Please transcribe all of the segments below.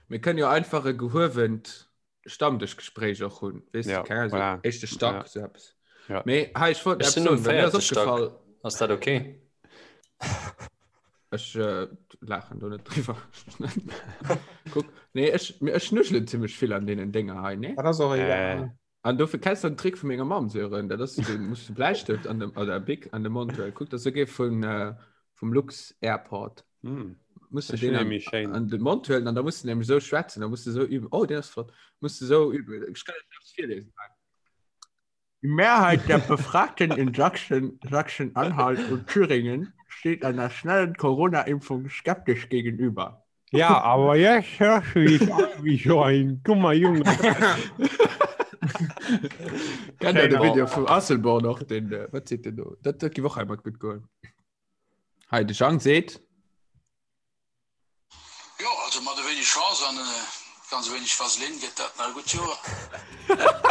Mir kënnen jo einfach e gehuewent Stammdëschgespréich och hunn. Weess Ja, du, keng Ahnung, so voilà. éischte Stack, Ja. sou eppes. Ja. Mee hei, ech wollt Ech eppes sinn um soen, well mir ass véierte Stack. opgefall, Ass dat okay? Ech äh, laachen do net driwwer. Kuck, nee, ech, mir- ech nuschelen zimmlech vill an deenen Dénger hei, ne? Dat ass och Äh. egal. An dofir kenns du den Trick vu menger Mamm, Sören, dat ass, du musst de Bläistëft an dem, oder Bic an de Mond huelen. Kuck, dat ass souguer vun, äh, vum Lux Airport. Hm. Musst du Das den finde an, ich nämlich schön. an den Mond huelen an da musst du nämlich so schwätzen, da musst du so üben. Oh, den ass flott. Musst du so üben. Ich kann dir das virlesen. Die Mehrheit der Befragten in Sachsen, Sachsen-Anhalt und Thüringen steht einer schnellen Corona-Impfung skeptisch gegenüber. Ja, aber jetzt hörst du dich an wie so ein dummer Junge. Kennt ihr den Video vum Asselborn och, den, äh, wat seet den do? Dat, dat gi och einmal gut goen. Hei, de Jang seet. Jo, also mat e wéineg Chance an e ganz e wéineg Vaseline gëtt dat nach e gutt Joer.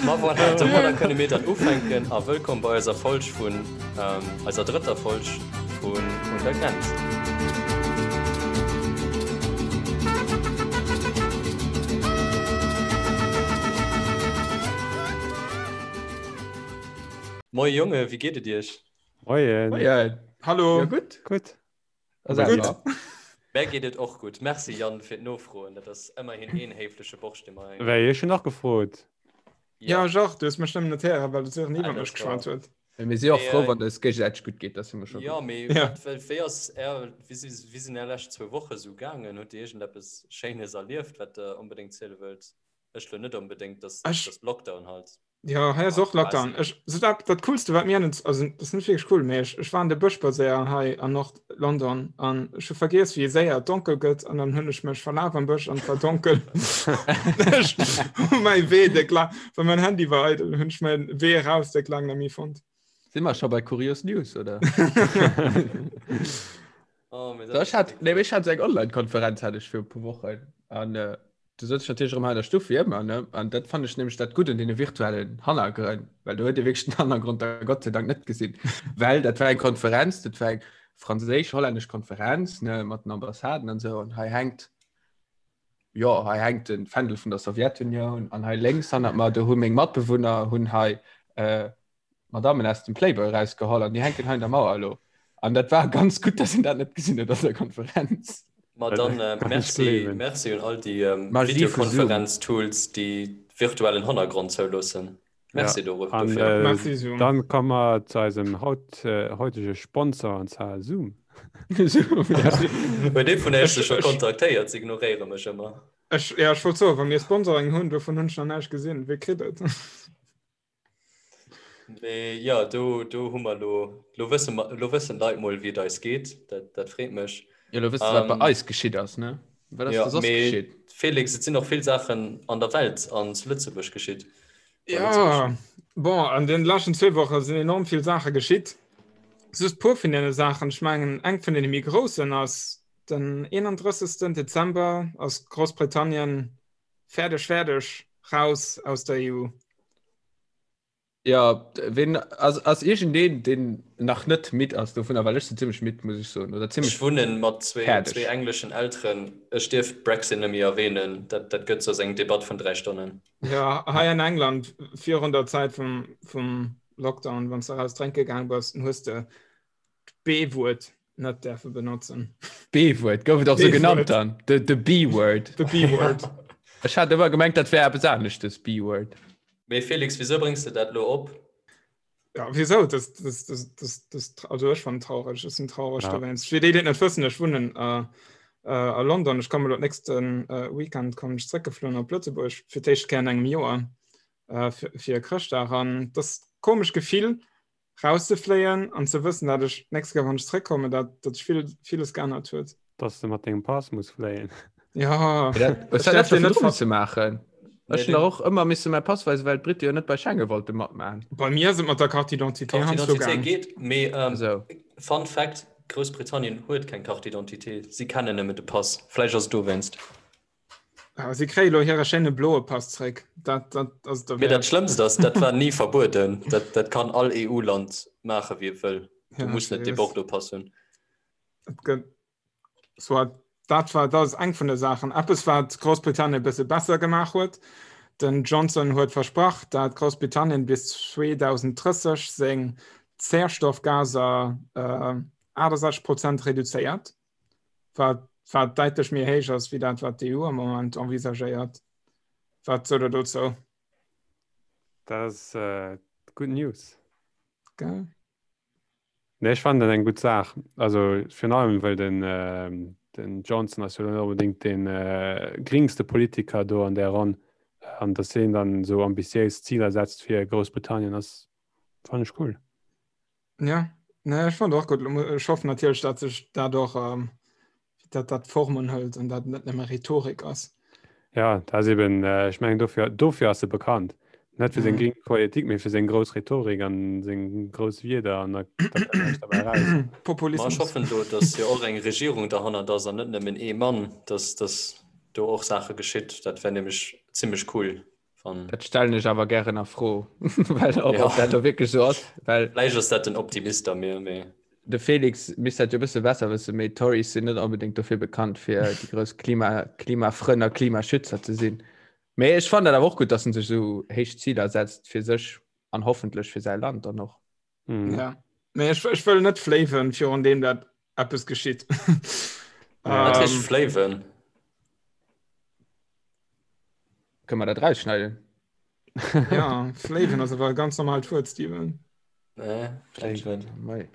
Ma voilà, domadder kënne mir dann ufänken a wëllkomm bei eiser Folg vun, eiser drëtter Folg vun Un der Grenz. Moie Jonge, wéi geet et iech? Moien. Moien. Hallo. Ja, gutt. Gutt. A selwer? Mär geet et och gutt. Merci Yann fir d'Nofroen. Dat ass ëmmerhin een héifleche Borscht, dee mer hei. Wéi, ech hunn och gefrot. Ja, ech och. Du hues mech nëmmen net héieren, well de Sören Ah, iwwer dat mech geschwat war. huet. Mee mir si och Mee, frou, äh, wann et eis géigesäiteg gutt geet. Dat si mer scho Jo, gutt. mee Ja. wat, wéi wéi ass är, wéi si, wéi sinn är lescht zwou Woche sou gaangen? Hutt Dir iergendeppes Schéines erlieft, wat Der onbedéngt ziele wëllt? Ech lo net onbedéngt, dass, Ech. dass Lockdown halt. Ja, hei ass och Lockdown. Ech, so dat, dat coolste wat mir an, also dat ass net wierklech cool, mee ech, ech war an de Bësch spadséieren hei an Nord-London an ech hu vergiess wéi séier et donkel gëtt an dann hunn ech mech verlaf am Bësch an et war donkel. Ech hu mäi Wee déck laang, well mäin Handy war eidel, hunn ech mäi Wee eraus déck laang net méi fonnt. Si mer scho bei Kurios News, oder? Oh, mee dat Ech ass hat, déck nee, flott. ech hat sou eng Online-Konferenz hat ech fir e puer Wochen an äh, Du sëtz natierlech erëm hei an der Stuff wéi ëmmer, ne? An dat fannen ech nämlech dat Gutt un deene virtuellen Hannergrënn, well do huet ee wierklech den Hannergrond da Gott sei Dank net gesinn. Well dat war eng Konferenz, dat war eng franséisch-hollännesch Konferenz, ne, mat den Ambassaden an esou. An hei hänkt, jo, hei hänkt de Fändel vun der Sowjetunioun an hei lénks hannert mer, do hu meng Matbewunner hunn hei äh, Madammen aus dem Playboy erausgeholl an déi hänken hei an der Mauer elo. An dat war ganz gutt, dass een dat net gesinn huet an der Konferenz. Ma dann Kann ech merci, gleewen. merci un all déi Magie vu Zoom. Videokonferenz-Tools, déi virtuellen Hannergrond zouloossen. Ja, Merci doro an dofir. äh, Merci Zoom. dann komme mer zu eisem haut, äh, heutege Sponsor, an zwar Zoom. Zoom, ja. Huet ee vun iech Ech, se scho ech, kontaktéiert? Se ignoréiere mech ëmmer. ech, ja, ech wollt soen, wa mir Sponsoring hunn, dovun hunn ech nach näischt gesinn. Wee kritt et? Mee jo, do, do hu mer lo, lo wësse mer, lo wëssen d'Leit mol, wéi et eis geet. Dat, dat freet mech. Jo, lo wëss de, wat bei Ähm, eis geschitt ass, ne? Wat ass ja, da soss mee geschitt? Felix, et sinn och vill Saachen an der Welt an zu Lëtzebuerg geschitt. Bei Lëtzebuerg. Ja, bon, an den leschten zwee Woche sinn enorm vill Saache geschitt. Just puer vun deene Saachen, ech mengen, eng vun deene méi groussen ass, den 31. Dezember ass Groussbritannien fäerdeg, fäerdeg, raus aus der EU. Ja, wen ass, ass iergendeen, deen nach net midd ass dovunner, well ech sinn zimmlech midd, muss ech soen, oder Ech zimmlech wunnen mat zwee, fäerdeg. zwee engleschen Elteren. Ech dierf Brexit net méi erwähnen, dat, dat gëtt soss eng Debatt vun 3 Stonnen. Ja, hei an England virun der Zäit vum, vum Lockdown, wann s de raus drénke gaang bass, dann hues de d'B-Wuert net däerfe benotzen. B-Wuert, gouf et och sou genannt B-Wuert. dann? The, the B-Word. The B-Word. Ech hat ëmmer gemengt, dat wär eppes aneschtes, B-Word. Mee Felix, wisou bréngs de dat lo op? Ja, wieso? Das, das, das, das, das, also ech fand traurig, ech sinn traurig Ja. dowéinst. Fir déi, déi et net wëssen, ech wunnen äh, äh, a London. Ech komme lo nächsten äh, Weekend kommen ech zréckgefloen op Lëtzebuerg fir d'éischt Kéier an engem Joer äh, fir, fir Chrëschtdag. An das komesch Gefill, rauszefléien an ze wëssen, dat ech d'nächst Kéier, wann ech zréckkommen, dat, dat sech vill, villes geännert huet. Dass de mat dengem Pass muss fléien. Ja, Dat, ech dat däerf dat deen net virdru ver misse maachen. Nee, Ech hunn den dach och ëmmer misse mäi Pass weisen, well d'Britte jo net bei Schengen wollte matmaachen. Bei mir ass et mat der Carte d'identité Carte heiansdo d'identité gaang. geet, mee ähm, Esou. Fun Fact, Groussbritannien huet keng Carte d'identité, si kennen nëmmen de Pass. Vläicht ass et dowéinst. Ah, si kréie lo hire schéine bloe Pass zréck. Dat, dat ass Mee dat derwäert. Schlëmmst ass, dat war ni verbueden. Dat, dat kann all EU-Land maache wéi et wëll. Du Ja, muss net dee seriös. Bordeaux-Pass hunn. Et gëtt soit dat war dat ass eng vun de Saachen. Eppes wat Groussbritannien e bësse besser gemaach huet. Den Johnson huet versprach, dat Groussbritannien bis 2030 seng Zäerstoffgaser äh, 68 Prozent reduzéiert, wat wat däitlech méi héich ass wéi dat wat d'EU am Moment envisagéiert. Wat sot der dozou? Dat ass äh, good news. Gell? Nee, ech fannen dat eng gutt Saach. Also virun allem well den, äh, den Johnson ass jo net onbedéngt den äh, gringste Politiker do an där Ronn. An dass hien dann esou ambitiéis Ziler setzt fir Groussbritannien ass fannen ech cool. Ja, nee, ech fand och gutt. Ech hoffen natierlech, dat sech dat och ähm, dat dat Formen hëlt an dat net nëmme Rhetorik ass. Ja, dat ass eben, äh, ech mengen dofir, dofir ass e bekannt. Net fir seng mhm. gring Politik, mee fir seng grouss Rhetorik an seng grouss Wierder an da, da kënnt näischt derbäi raus. Populismus. Ma ech hoffen do, dass jo och eng Regierung derhannert ass an net nëmmen ee Mann, dass, dass do och Saache geschitt. Dat wär nämlech zimmlech cool. Wann... Dat stellen ech awer gären a Fro, well ob, ja. ob dat do wierklech sou ass. Well Vläicht ass dat den Optimist a mir, mee. De Felix misst dat jo e bësse besser wëssen, mee d'Tories sinn net onbedéngt dofir bekannt, fir déi grouss Klima, Klimafrënn a Klimaschützer ze sinn. Mee ech fannen dat awer och gutt, datt en sech esou héich Ziler setzt fir sech an hoffentlech fir säi Land dann och. Mhm. Ja. Mee ech, ech wëll net fléiwen, virun deem dat eppes geschitt. Wat heescht ähm, fléiwen? Kënne mer dat rausschneiden? Ja, fléiwen ass awer e ganz normalt Wuert, Steven. Nee, vläicht net.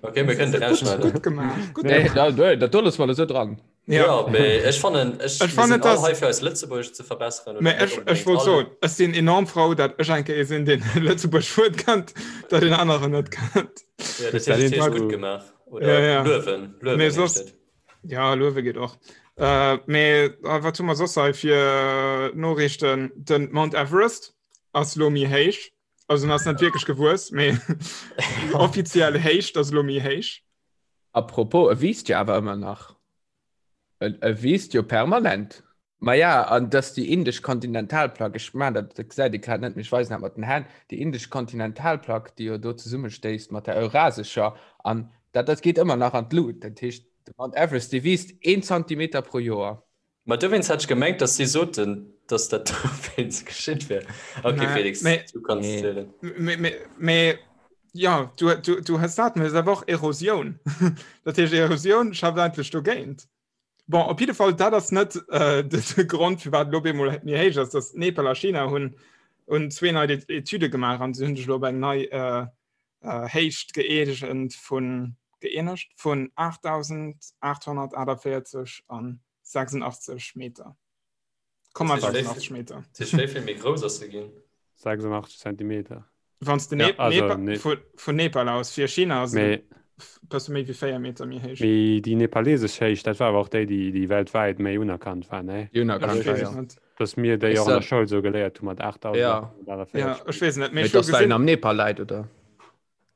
Okay, mir kënnen rausschneiden. Gutt gemaach. Gutt nee, da, da, dat do loosse mer esou dran. Ja, ja mee ech fannen, ech, ech fannen das, hei fir eis Lëtzebuergesch ze verbesseren. Mee ech, ech wollt soen, ech sinn enorm frou, dat ech eng Kéier sinn, deen Lëtzebuerg Wuert kennt, dat een aneren net kennt. Ja, dat hues du gutt gemaach. Oder ja, ja. Luewen. Luewen mee soss, ja, Luewe geet och. Äh, mee äh, wat hu mer soss hei fir Noriichten? Den Mount Everest ass lo méi héich. Also en ass net wierklech gewuess, mee déi offiziell Héicht ass lo méi héich. Apropos, e wiisst jo awer ëmmer nach. E, e wiisst jo permanent. Maja, an dass déi indesch Kontinentalplack, ech man dat, dat gesäit ee grad net, mee ech weisen dat mat den Hänn, déi indesch Kontinentalplack, déi jo do zesummestéisst mat der eurasescher, an dat, dat geet ëmmer nach an d'Lut. Dat heescht, de Mount Everest, dee wiisst een Zantimeter pro Joer. Ma dowéinst hat ech gemengt, dass si soten, dass dat dowéinst geschitt wär. Okay, Nee, Felix, mee- du kanns Nee. zielen. Mee, mee, mee, ja, du, du, du hues dat, mee et ass awer och Erosioun. Dat heescht, Erosioun schafft eigentlech dogéint. Bon, op jidde Fall, dat ass net äh, de, de Grond, firwat elo op eemol méi héich ass, dass Nepal a China hunn, hunn zwee nei Etüde gemaach an se hunn sech elo op eng nei äh, äh, Héicht gëeegent vun, gëeenegt vun 8.848 an 86 Meter. 86 Meter. Dat heescht, wéi vill méi grouss ass se ginn? 86 Zentimeter. Wann du Ja, ne also, Nepal, ne- vu, vun Nepal aus fir China ass Mee, et bësse méi wéi 4 Meter méi héich. mee déi nepalesesch Héicht, dat war awer och déi, déi, déi weltwäit méi unerkannt war, ne? Déi unerkannt Ech war, weess ja. et net. Dass mir déi Ist och an der dat- Schoul sou geléiert hu mat Ja. 8848. Ja, ech weess et net. Mee Mee ech hu dass well en gesinn, am Nepal läit, oder?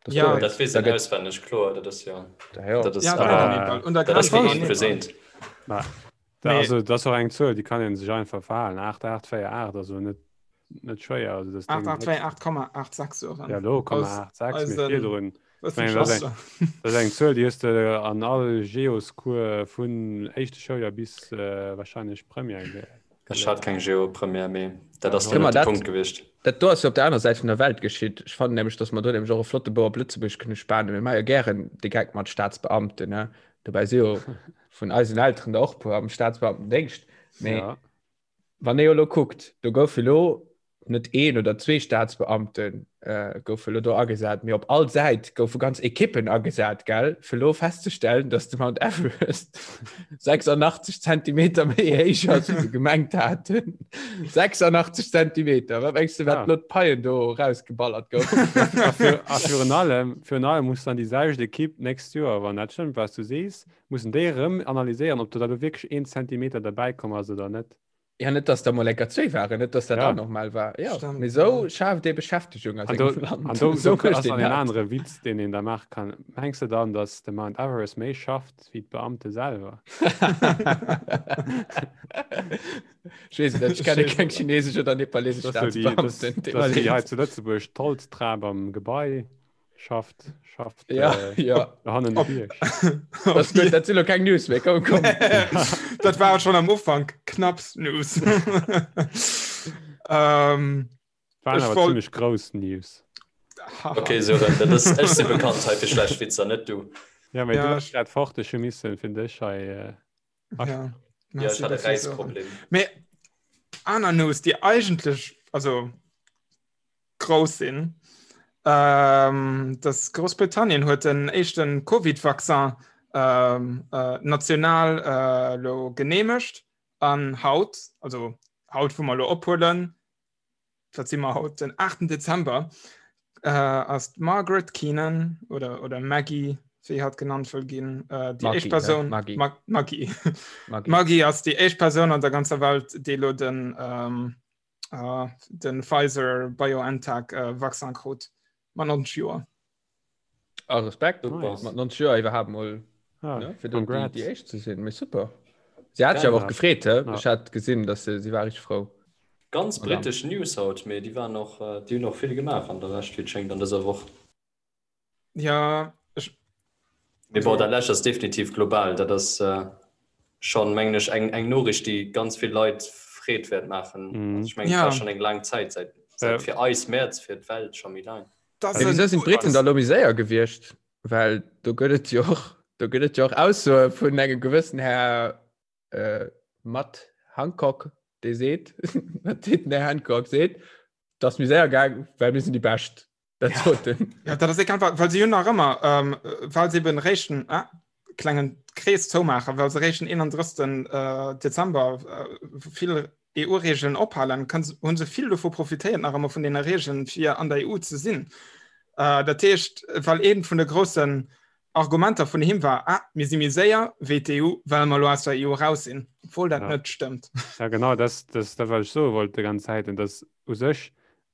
Das Ja. do- Dat weess da een gëtt- auswenneg, kloer, dat ass jo. Da ja. Dat ass ja, awer- dat am Nepal. Un der dat ass Grenz wéi mat een Nepal. versehnt. Ma, da, Mee- also, dat ass och eng Zuel, déi kann een sech einfach verhalen. 8848, also net, net schwéier. Also, das Ding 8828,86 soren. Ja, lo, Aus- 86, eisen- mee virdrun. Was Mengen, das ist Das ass eng Zuel, déi hues de an all Geoscours vun éischte Schouljoer bis äh, wahrscheinlech Première ge Ech hat keng Geo-Première, mee dat ass Kënne dann mer net de dat- Punkt gewiescht. Dat do ass jo op der aner Säit vun der Welt geschitt. Ech fannen nämlech, datt mer do nämlech och e flotte Bou op Lëtzebuerg kënne spanen. Mir maache jo gären de Geck mat Staatsbeamten, ne? Dobäi si jo vun eisen Elteren der och puer am Staatsbeamtendéngscht. Mee Ja. Wann ee jo elo kuckt, do goufe elo net een oder zwee Staatsbeamte goufe elo do agesat, mee op all Säit goufe ganz Ekippen agesat, gell, fir elo festzestellen, datt de Mount Everest 86 Zentimeter méi héich ass, wéi se gemengt haten. 86 Zentimeter! Wat mengs de, wat elo d'Paien do erausgeballert goufen? A virun allem, virun allem muss dann déi selwecht Ekipp d'nächst Joer, wann dat stëmmt, wat s du sees, Mussen déi erëm analyséieren, ob do da lo wierklech een Zentimeter derbäi komm ass oder net. Ja, net dass der mol enker zwee waren, net dass dat Ja. auch normal war. Ja, Stimmt, mee sou ja. schaaft ee Beschäftegung a An do, sengem Land. an do, Sou do mécht ass een dann en dat. anere Witz, deen een da maache kann. Mengs de dann, dass de Mount Everest méi schafft wéi d'Beamte selwer? Ech weess et net, ech kenne keng chinesesch oder nepalesesch Das ass jo déi, das, Staatsbeamten. das ass wéi hei zu Lëtzebuerg d'Holztrap am Gebai. Schafft, schafft ja, äh, ja. hannen de Bierg. Das gut, dat sinn keng News méi komm, komm. Dat war schon am Ufank knapps News. ähm, Waren awer wollt... ziemlich grouss News. Okay, so, dat ass, ech si bekannt hei fir schlecht Witzer, net du. Ja, mee ja, du hast grad fort, ech hu missen fir dech hei. Äh, ja, ja, ich hatte Reisproblem. Mee aner News, déi eigentlech, also grouss sinn. Ähm, dass Groussbritannien huet den éischten Covid-Vaccin ähm, äh, national äh, lo geneemegt an haut, also haut wou mer lo ophuelen, wat si mer haut den 8. Dezember, äh, ass d'Margaret Keenan oder, oder Maggie, wéi hatt genannt wëll ginn, äh, déi éischt Persoun Maggie. Ma Maggie. Maggie. Maggie ass déi éischt Persoun an der ganzer Welt, déi lo den ähm, äh, den Pfizer BioNTech äh, Vaccin krut mat 90 Joer. Ah, Respekt nice. mat 90 Joer iwwerhaapt mol ah, ne, fir déi, déi éischt ze sinn. Mee super. Si hat sich awer och gefreet, he? Ja. Ech hat gesinn, dass se, si war richtig frou. Ganz britesch News haut, mee déi waren och, äh, déi hunn och vill gemaach an der Lescht, wéi et schéngt, an dëser Woch. Ja, ech. Mee bon, dat lescht ass definitiv global. Dat ass äh, schonn, mengen ech, eng, eng Noriicht, déi ganz vill Leit Freed wäert maachen. Mhm. Also ech mengen, et Ja. war schonn eng laang Zäit, säit, säit Äh. fir eis Mäerz, fir d'Welt scho méi laang. Das Mee wieso sinn d'Briten da lo méi séier gewiescht? Well do gëtt et jo och, do gëtt et jo och Aussoe vun engem gewëssen Här äh, Matt Hancock, dee seet, wat seet den Här Hancock? Seet, dat ass méi séier gaang, well mir sinn déi Bescht. Dat Ja. sot en. Ja, dat ass egal, well, well se hunn nach ëmmer, ähm, well se eben réischten, ah, klengen Krees zoumaachen, well se réischten 31. Äh, Dezember äh, vill EU-Regeln ophalen, kann, hunn se vill dovu profitéiert nach ëmmer vun deene Regeln, fir an der EU ze sinn. Äh, dat heescht, well eent vun de groussen Argumenter vun him war, ah, mir si méi séier wéi d'EU, well mer elo aus der EU raus sinn, obwuel dat Ja. net stëmmt. Ja, genau, das, das, dat wat ech soe wollt déi ganz Zäit, und das u sech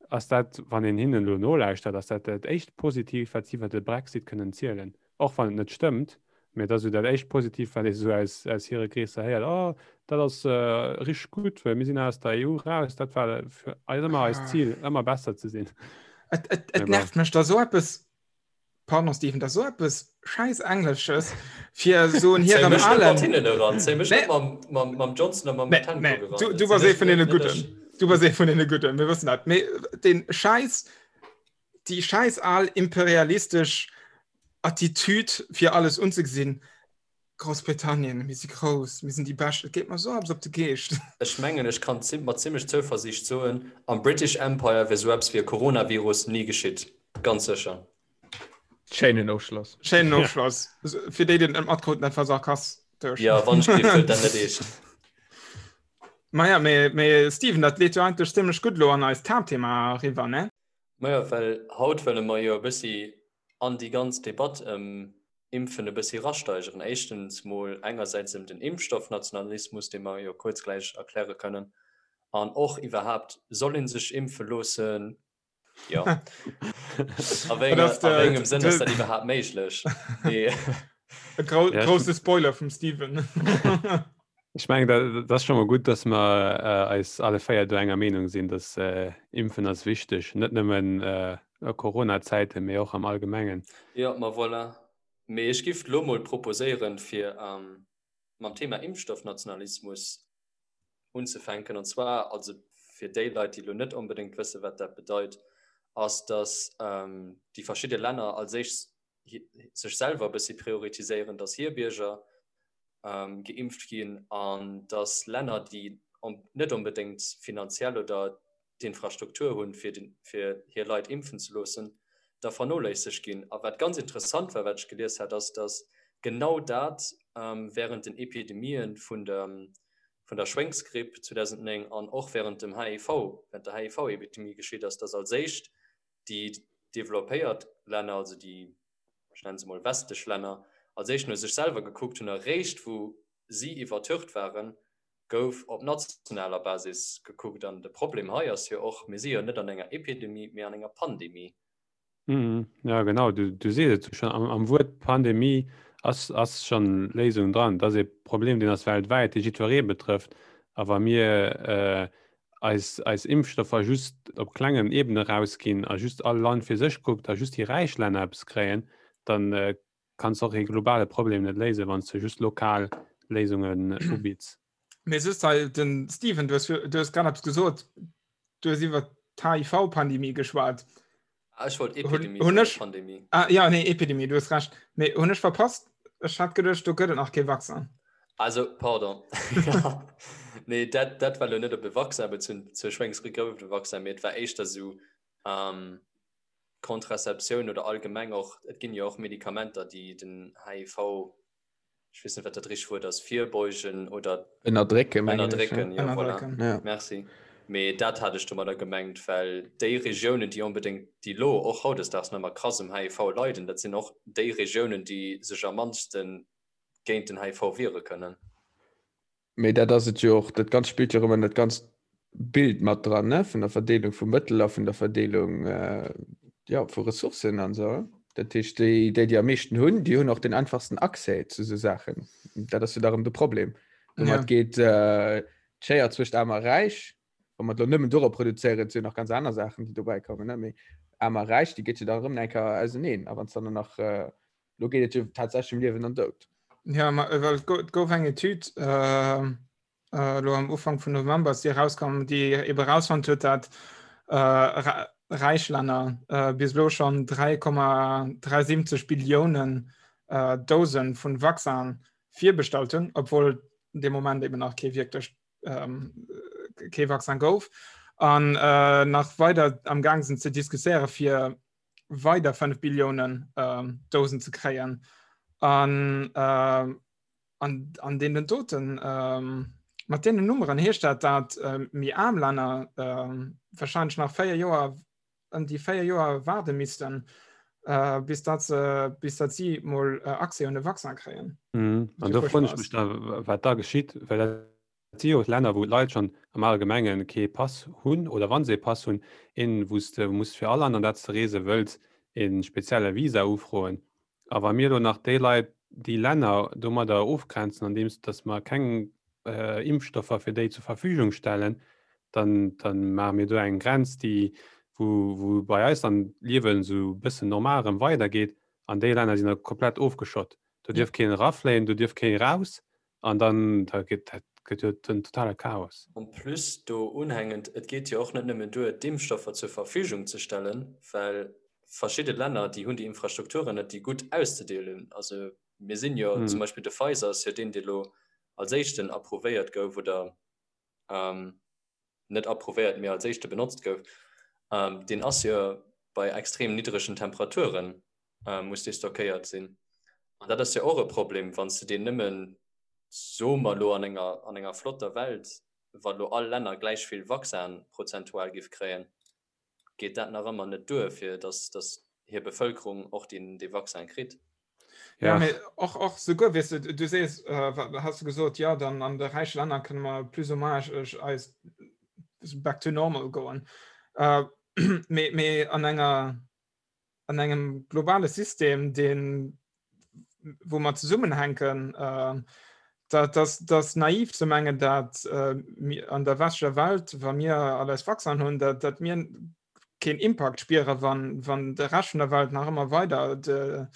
ass dat, wann een hinnen elo nolauschtert, ass dat dat éischt Positiivt, wat si iwwer de Brexit kënnen zielen. Och wann et net stëmmt, mä et ass esou dat éischt Positiivt, wat ee sou aus, aus hire Kreesser héiert, Oh, dat ass richteg gutt, well mir sinn aus der EU raus, dat war fir eis ëmmer eist Zil, ëmmer besser ze sinn. Et, et, et nervt mech, da sou eppes Pardon Steven, dat so eppes scheiß Englesches fir so en hirem alen mam Johnson mam nee, nee. Du, du warst ee vun den Gudden. Du warst ee vun den Gudden, mir wëssen dat. Mee den Scheiß déi scheiß al imperialistesch Attitüd fir alles unzegesinn. Groussbritannien, mir si grouss, mir sinn déi Bescht, et geet mer esou eppes op de Geescht. Ech mengen, ech kann mat zimmlech Zouversiicht soen, am British Empire wier sou eppes wéi e Coronavirus ni geschitt. Ganz sécher. Schéinen Ofschloss. Schéinen Ofschloss. Fir déi, déi et net matkruten, dat war sarkastesch. Jo, wann ech géif, huelt dat net eescht. Maja, mee, mee Steven, dat leet jo eigentlech zimmlech gutt elo an eist Haaptthema eriwwer, ne? Majo, well haut wëlle mer jo e bëssi an déi ganz Debatt ëm Impfen e bëssi erasteigeren. Éischtens mol engersäits ëm den Impfstoffnationalismus, dee mer jo kuerz gläich erkläre kënnen, an och iwwerhaapt, soll ee sech impfe loossen? Jo. A wéi engem Sënn ass dat iwwerhaapt méiglech? E grousse Spoiler vum Steven. Ech mengen, dat ass scho mol gutt, datt mer eis alle 4 do enger Meenung sinn, datt Impfen ass wichteg, net nëmmen a Corona-Zäiten, mee och am Allgemengen. Jo, ma voilà. Mee ech giff lo mol proposéieren, fir mam Thema Impfstoffnationalismus unzefänken. An zwar, also fir déi Leit, déi lo net onbedéngt wëssen, wat dat bedeit, ass, datt déi verschidde Länner als éischt sech selwer e bëssi prioritiséieren, datt hir Bierger geimpft ginn an datt Länner, déi net onbedéngt finanziell oder d'Infrastruktur hunn, fir fir hir Leit impfen ze loossen, da vernoléissegt ginn. A wat ganz interessant war, wat ech gelies hat, ass, datt genau dat während den Epidemien vun der vun der Schwéngsgripp 2009 an och während dem HIV, während der HIV-Epidemie geschitt ass, datt als éischt déi developpéiert Länner, also déi ech nennen se mol westlech Länner, als éischt no sech selwer gekuckt hunn a réischt wou si iwwertürcht waren, gouf op nationaler Basis gekuckt. An de Problem hei ass jo och, mir si jo net an enger Epidemie, mee an enger Pandemie. Ja genau, du, du sees et schon, am, am Wuert Pandemie ass, ass schon Léisung dran. Dat ass e Problem, deen ass weltwäit, dee jiddweree betrëfft. A wa mir äh, eis, eis Impfstoffer just op klengen Ebene rausginn a just all Land fir sech kuckt a just déi räich Länner eppes kréien, dann äh, kanns och ee globale Problem net léisen, wann s de just lokal Léisungen ubitts. Mee just hei, den Steven, du hues, du hues grad eppes gesot, du hues iwwer d'HIV-Pandemie geschwat. Ah, ech wollt Epidemie hun ech, Pandemie. Ah, ja, nee, Epidemie, du hues recht. Mee hunn ech verpasst? Ech hat geduecht, do gëtt et nach kee Vaccin. Also, pardon. Nee, dat, dat war lo net op e Vaccin bezunn. Zur Schwéngsgripp gouf et e Vaccin, mee et war éischter sou ähm, Contraceptioun oder allgemeng och, et ginn jo och Medikamenter, déi den HIV ech weess net wat dat richteg Wuert ass, virbeugen oder ënnerdrécken, mengen ech, ënnerdrécken, jo, voilà. Ënnerdrécken. Ja. Merci. Mee dat hat ech domadder gemengt, well déi Regiounen, déi onbedéngt, déi elo och hautdesdaags nach ëmmer krass um HIV leiden, dat sinn och déi Regiounen, déi sech am mannste géint den HIV wiere kënnen. Mee dat ass et jo och, dat Ganzt spillt jo erëm an dat ganzt Bild mat dran, ne, vun der Verdeelung vu Mëttel a vun der Verdeelung, jo, vu Ressourcen an esou. Dat heescht, déi, déi, déi am meeschten hunn, déi hunn och den einfachsten Accès zu esou Saachen. Dat ass jo da erëm de Problem. Domat geet d'Schéier zwëscht Aarm a Räich, wa mer et elo nëmmen dorop reduzéieren, et si jo nach ganz aner Saachen, déi dobäi kommen, ne, mee Aarm a Räich, déi geet jo dann erëm eng Kéier auseneen. A wann s dann nach Lo geet et jo tatsächlech ëm Liewen an Doud. Ja, ma, äh, well et go- et gouf eng Etüd äh, äh, lo am Ufank vun November ass déi erauskomm, déi ebe rausfonnt huet, dat äh, Ra- räich Länner äh, bis elo schonn 3,73 Billiounen äh, Dosen vun Vaccin virbestallt hunn, obwohl de Moment eben nach kee wierklech ähm, kee Vaccin gouf. An äh, nach weider am Gang sinn ze diskutéiere fir weider 5 Billiounen ähm, Dosen ze kréien. An, äh, an, an deenen doten ähm, mat deenen Nummeren heescht dat, dat äh, méi aarm Länner äh, wahrscheinlich nach 4 Joer ëm déi 4 Joer waarde missten, äh, bis dat se, bis dat si mol äh, Accès un de Vaccin kréien. Mhm. An do froen ech mech da, wat da geschitt, well dat Et si jo Länner, wou d'Leit schonn am Allgemenge kee Pass hunn oder wa se ee Pass hunn, een, wou s de muss fir all Land, an dat s de reese wëlls, e spezielle Visa ufroen. A wa mir elo nach déi Leit, déi Länner domadder ofgrenzen, andeems datt mer keng Impfstoffer fir déi zur Verfügung stellen, dann, dann maache mir do eng Grenz, déi, wou, wou bei eis dann d'Liewen esou e bëssen normal erëm weidergeet an déi Länner sinn da komplett ofgeschott. Do dierf keen erafléien, do dierf kee raus An dann da gëtt dat gëtt jo den totale Chaos. En plus do unhängend, et geet jo och net nëmmen duer, d'Impfstoffer zur Verfügung ze stellen, well verschidde Länner, déi hunn déi Infrastrukturen net, déi gutt auszedeelen. Also mir sinn jo zum Beispill, de Pfizer ass jo deen, dee lo als éischten approuvéiert gouf oder net approuvéiert, mee als éischte benotzt gouf, deen ass jo bei extrem niddregen Temperaturen muss dee stockéiert sinn. An dat ass jo och e Problem, wann s de deen nëmmen, soe mer elo an enger, an enger flotter Welt, wa lo all Länner gläich vill Vaccin prozentual giff kréien, geet dat nach ëmmer net duer, fir datt, datt hir Bevëlkerung och deen, dee Vaccin kritt. Ja, ja. Mee och, och souguer, weess de, du sees, äh, has du gesot, ja, dann an de räiche Länner kënne mer plus ou moins eis back to normal goen. Äh, mee, mee an enger an engem globale System, deen wou mer zesummenhänken, äh, dat das, das naiv ze mengen, dat äh, an der westlecher Welt, wa mir all eis Vaccin hunn, dat, dat mir keen Impact spiere wann, wann de Rescht vun der Welt nach ëmmer weider de,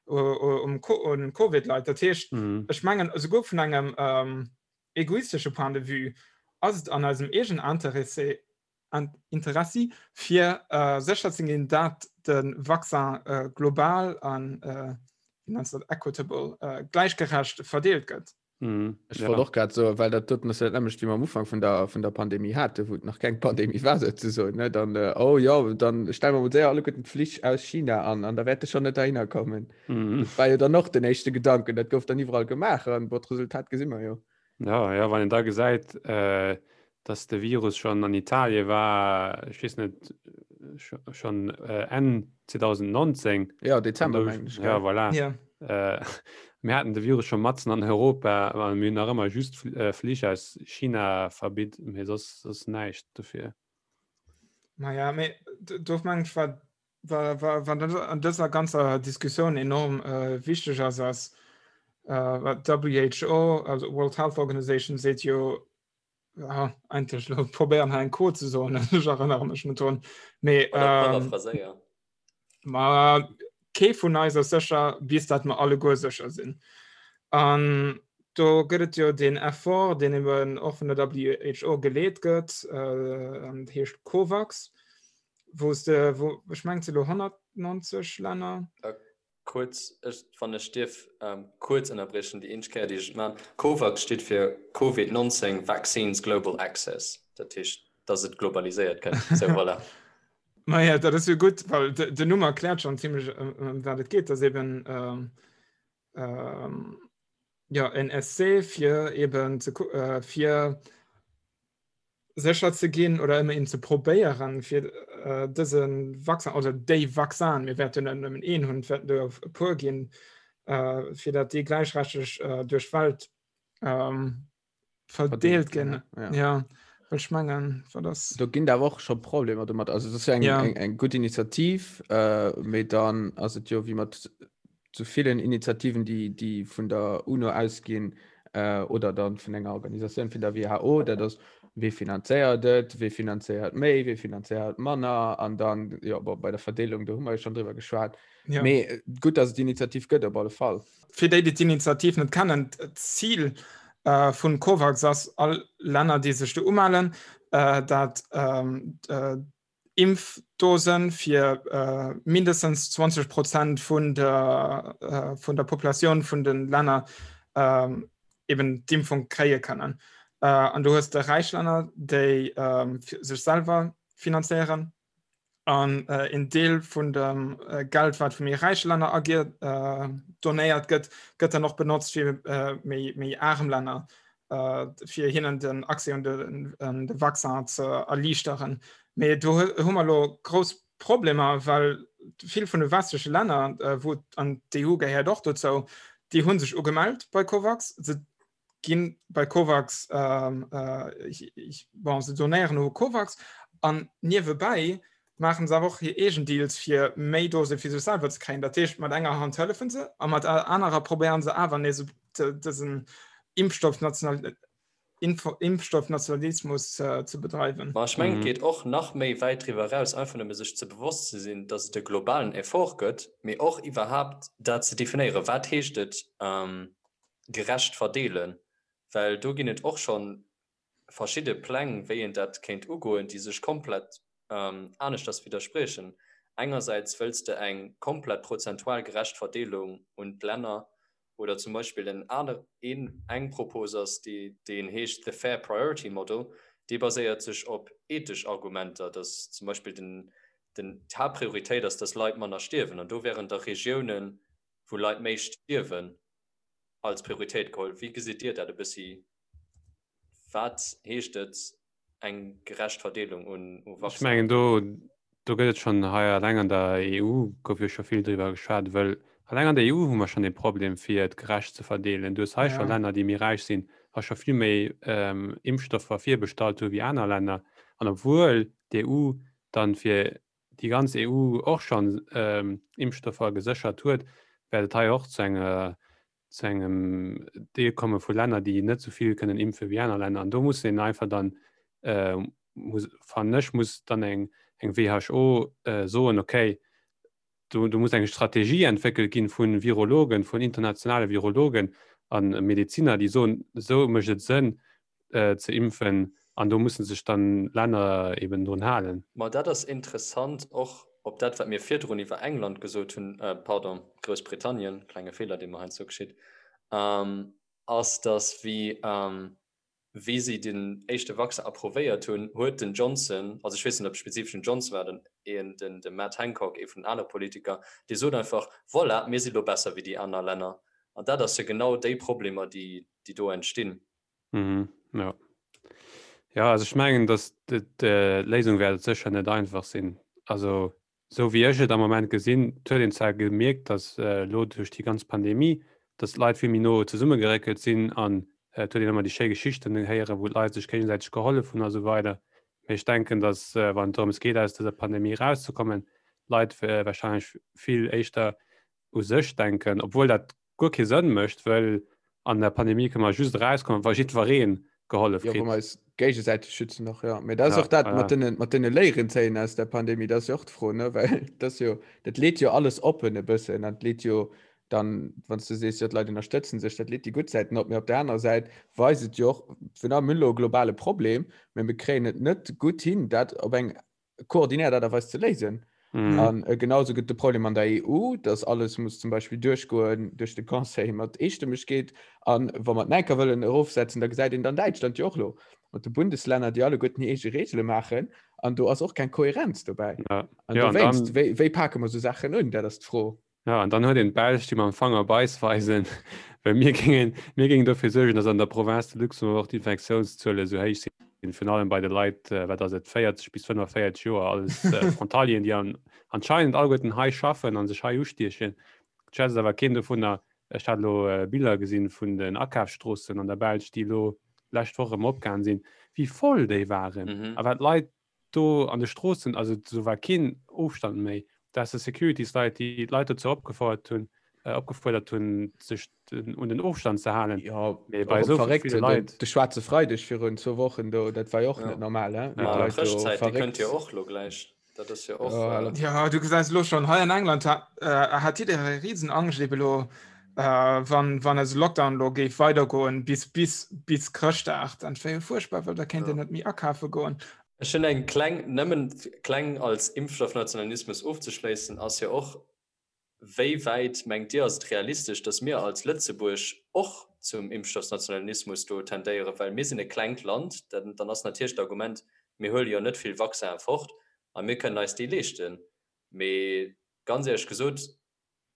um, um Covid leit. Dat heescht, mhm. ech mengen esouguer vun engem ähm, egoistesche Point de vue ass et an eisem eegen Interessé Interessi fir äh, sécher ze ginn, dat de Vaccin äh, global an äh, wie nennst dat equitable äh, gleichgerecht verdeelt gëtt. Mhm. Ech ja. wollt och grad so well dat doten ass ja dat nämmlecht wéi mer am Ufank vun der vun der Pandemie hate wou et nach keng Pandemie war souzesoen ne dann äh, oh jo dann stelle mer mol séier alleguerten d'Flich aus China an an da wäerte schon net derhinner kommen. Mhm. Dat war jo dann och den éischte Gedanken dat gouf dann iwwerall gemaach an bon d'Resultat gesi mer jo. Ja, ja, wann een da gesäit, äh, dass de Virus schon an Italie war, ech weess net, schon äh, Enn 2019. Ja, Dezember, mengen ech. Ja, voilà. Ja. Äh, mir haten de Virus schon matzen an Europa, a mir hunn nach ëmmer just äh, Flich aus China verbitt, mee soss, soss näischt dofir. Naja, mee do mengen ech, war Wat an dëser ganzer Diskussioun enorm äh, wichteg ass, ass äh, wat WHO, also World Health Organization, seet jo. Ja, eigentlech lo probéieren hei eng Quote ze soen, ech erënnere mech net drun. Mee ähm, ma kee vun eis ass sécher, bis dat mer alleguer sécher sinn. An do gëtt et jo den Effort, deen eben och vun der WHO geleet gëtt, äh, an heescht COVAX, wou s de, wou, ech mengen, et si lo 190 Länner. Äh, Kuerz, ech, wann ech dierf kuerz ënnerbriechen, déi eenzeg Kéier, déi ech et maachen, COVAX steet fir Covid 19 Vaccines Global Access, dat heescht, dass et globaliséiert gëtt. Sou, voilà. Maja, dat ass jo gutt, well den Numm erkläert schonn zimmlech, ëm wat et geet, dass eben jo en Essai fir eben ze fir sécher ze ginn oder ëmmerhin ze probéieren, fir äh, dëse Vaccin oder déi Vaccin, mir wäerten net nëmmen een hunn, et wäerten der e puer ginn, äh, fir dat déi gläichrechteg äh, duerch d'Welt ähm, verdeelt ginn. Ja. Ja, well ech mengen, wat ass. Do ginn awer och scho Problemer domat. Also dat ass jo eng, Ja. eng, eng gutt Initiativ, äh, mee dann ass et jo wéi mat zu villen Initiativen, déi, déi vun der UNO ausginn äh, oder dann vun enger Organisatioun vun der WHO, dat ass, wee finanzéiert et, wee finanzéiert méi, wee finanzéiert manner an dann, jo, bon, bei der Verdeelung, do hu mer jo schonn driwwer geschwat. Ja. Mee äh, gutt, dass et déi Initiativ gëtt, op alle Fall. Fir déi, déi d'Initiativ net kennen, d'Zil äh, vun COVAX ass, all Länner, déi sech do umellen, äh, dat ähm, äh, Impfdosen fir mindestens 20 Prozent vun der, vun der Populatioun vun den Länner eben d'Impfung kréie kënnen. An du hues de räich Länner, déi sech selwer finanzéieren an een Deel vun dem Geld, wat vu méi räiche Länner agier donéiert gëtt, gëtt dann och benotzt fir méi, méi arem Länner fir hinnen den Accès un de, de Vaccin ze erliichteren. Mee do hu mer elo grouss Problemer, well vill vun de westleche Länner, wou an d'EU gehéiert och dozou, déi hu sech ugemellt bei COVAX, se gi bei COVAX, bon, se donéieren u COVAX an niewebäi maachen se awer och hir eegen Deals fir méi Dose fir sech selwer ze kréien. Dat heescht mat enger Hand hëllefen se a mat der anerer probéieren se awer nees dësen Impfstoffnational Impfstoffnationalismus ze bedreiwen. Ma ech mengen, et geet och nach méi wäit driwwer eraus, einfach nëmme sech ze bewosst ze sinn, datt et e globalen Effort gëtt, mee och iwwerhaapt dat ze definéieren, wat heescht et gerecht verdeelen, well do ginn et och scho verschidde Pläng, wéi een dat kéint ugoen, déi sech komplett aneschters widderspriechen. Engersäits wëlls de eng komplett prozentual gerecht Verdeelung un d'Länner oder zum Beispill en aner, een, eng Propos ass, déi, deen heescht The Fair Priority Model, dee baséiert sech op ethesch Argumenter, dass zum Beispill den, den, d'Haaptprioritéit ass, dass Leit manner stierwen an do wären da Regiounen, wou Leit méi stierwen, als Prioritéit geholl. Wéi gesitt Dir dat e bëssi? Wat heescht et, eng gerecht Verdeelung un Vaccinen? Ech mengen, do, do gëtt et schonn hei alleng an der EU gouf jo scho vill driwwer geschwat, wëll alleng an der EU hu mer schonn ee Problem, fir et gerecht ze verdeelen. Du hues hei scho Länner, déi méi räich sinn a scho vill méi Impfstoffer virbestallt hu wéi aner Länner. An obwuel d'EU dann fir déi ganz EU och schonn Impfstoffer geséchert huet, wäert et hei och zu enger zu engem Deel komme vu Länner, déi net esou vill kënnen impfe wéi aner Länner. An do muss een einfach dann, äh, muss, fannen ech, muss dann eng, eng WHO äh, soen, okay, do, do muss eng Strategie entwéckelt ginn vu Virologen, vun internationale Virologen an Medeziner, déi soen, esou mécht et Sënn, ze impfen an do mussen sech dann Länner eben drun halen. Ma dat ass interessant, och op dat, wat mir virdrun iwwer England gesot hunn, pardon, Groussbritannien, klenge Feeler, dee mer heiansdo geschitt, ass, datt wéi, wéi si den éischte Vaccin approvéiert hunn, huet den Johnson, also ech weess net, ob et spezifesch den Johnson war, den, een, den, de Matt Hancock, ee vun den anere Politiker, dee sot einfach, Voilà, mir si lo besser wéi déi aner Länner. An dat ass jo genau déi Problemer, déi, déi do entstinn. Mhm, ja. Ja, also ech mengen, dass d'Léisung wäert et sécher net einfach sinn. Also esou wéi ech et am Moment gesinn, et huet een zwar gemierkt, dass elo duerch déi ganz Pandemie, dass d'Leit vill méi no zesummegeréckelt sinn an et huet een ëmmer déi schéi Geschichten héieren, wou d'Leit sech géigesäiteg gehollef hunn a sou weider. Mee ech denken, dass wann et drëms geet, aus dëser Pandemie erauszekommen, d'Leit warscheinlech vill éischter u sech denken, obwuel dat guer kee Sënn mécht, wëll an der Pandemie kënne mer just erauskommen, wa jiddweree gehollef kritt. Jo, wa mer eis. Géigesäiteg schützen och, ja. Mee dat ass Ja, och dat ja. mat den, mat den Léieren zéien aus der Pandemie, dat ass jo och d'Fro, ne? Well dat ass jo, dat leet jo alles oppen e bëssen an leet jo dann, wann s du sees, jo d'Leit ënnerstëtzen sech, dat leet déi gutt Säiten op, mee op der anerer Säit weist et jo och, vun allem, mir hunn elo e globale Problem, mee mir kréien et net gutt hin, dat op eng koordinéiert Aart a Weis ze léisen. Mhm. An äh, genauso gëtt de Problem an der EU, dass alles muss zum Beispill duerchgoen duerch de Conseil mat Eestëmmegkeet. An wa mer d'Näiker wëllen erofsetzen, da gesäit een dann Däitschland jo och lo mat de Bundeslänner, déi alleguerten hir eege Reegele maachen. An do ass och keng Kohärenz dobäi. Ja. An Ja, an dowéinst, dann- wéi, wéi pake mer sou Saachen un? Dat ass d'Fro. Ja, an dann huet een d'Belsch, déi mam Fanger op eis weisen, well mir géingen, mir géingen dofir suergen, datt an der Province de Luxembourg och d'Infektiounszuele sou héich sinn, virun allem bei de Leit, wat ass et, 40 bis 45 Joer, alles Frontalieren, déi an, anscheinend alleguerten hei schaffen a sech hei ustiechen. Et schwätzt awer keen dovunner. Ech hat elo Biller gesinn vun den Akafsstroossen an der Belsch, déi elo d'lescht Woch erëm opgaangen sinn, wéi voll déi waren a wat Leit do an de Stroossen, also do war keen Ofstand méi, da has de Securitysleit, déi d'Leit dozou opgefouert hunn, opgefuerdert hunn, sech un den Ofstand ze halen. Jo, Mee bei esou verréckt, ville Leit. De schwaarze Freideg virun zwou Wochen do, dat war jo och net normal, he? Wéi Ja, d'Leit do Chrëschtzäit, déi kënnt verréckt. jo och elo gläich. Dat ass jo och. Ja, Ja, du gesäis elo schonn, hei an England hat, hat jidderee Risenangscht ebe elo, wann, wann eise Lockdown elo géif weidergoen bis, bis, bis Chrëschtdag, dann wär jo fuerchtbar, well da kéint een net méi akafe goen. Ech hunn eng kleng, nëmmen kleng als Impfstoffnationalismus ofzeschléissen, ass jo och, Wéi wäit, mengt Dir, ass et realistesch, datt mir als Lëtzebuerg och zum Impfstoffnationalismus do tendéieren? Well mir sinn e klengt Land, dann ass natierlech d'Argument, mir huele jo net vill Vaccinen fort a mir kënnen eis déi leeschten. Mee ganz éierlech gesot,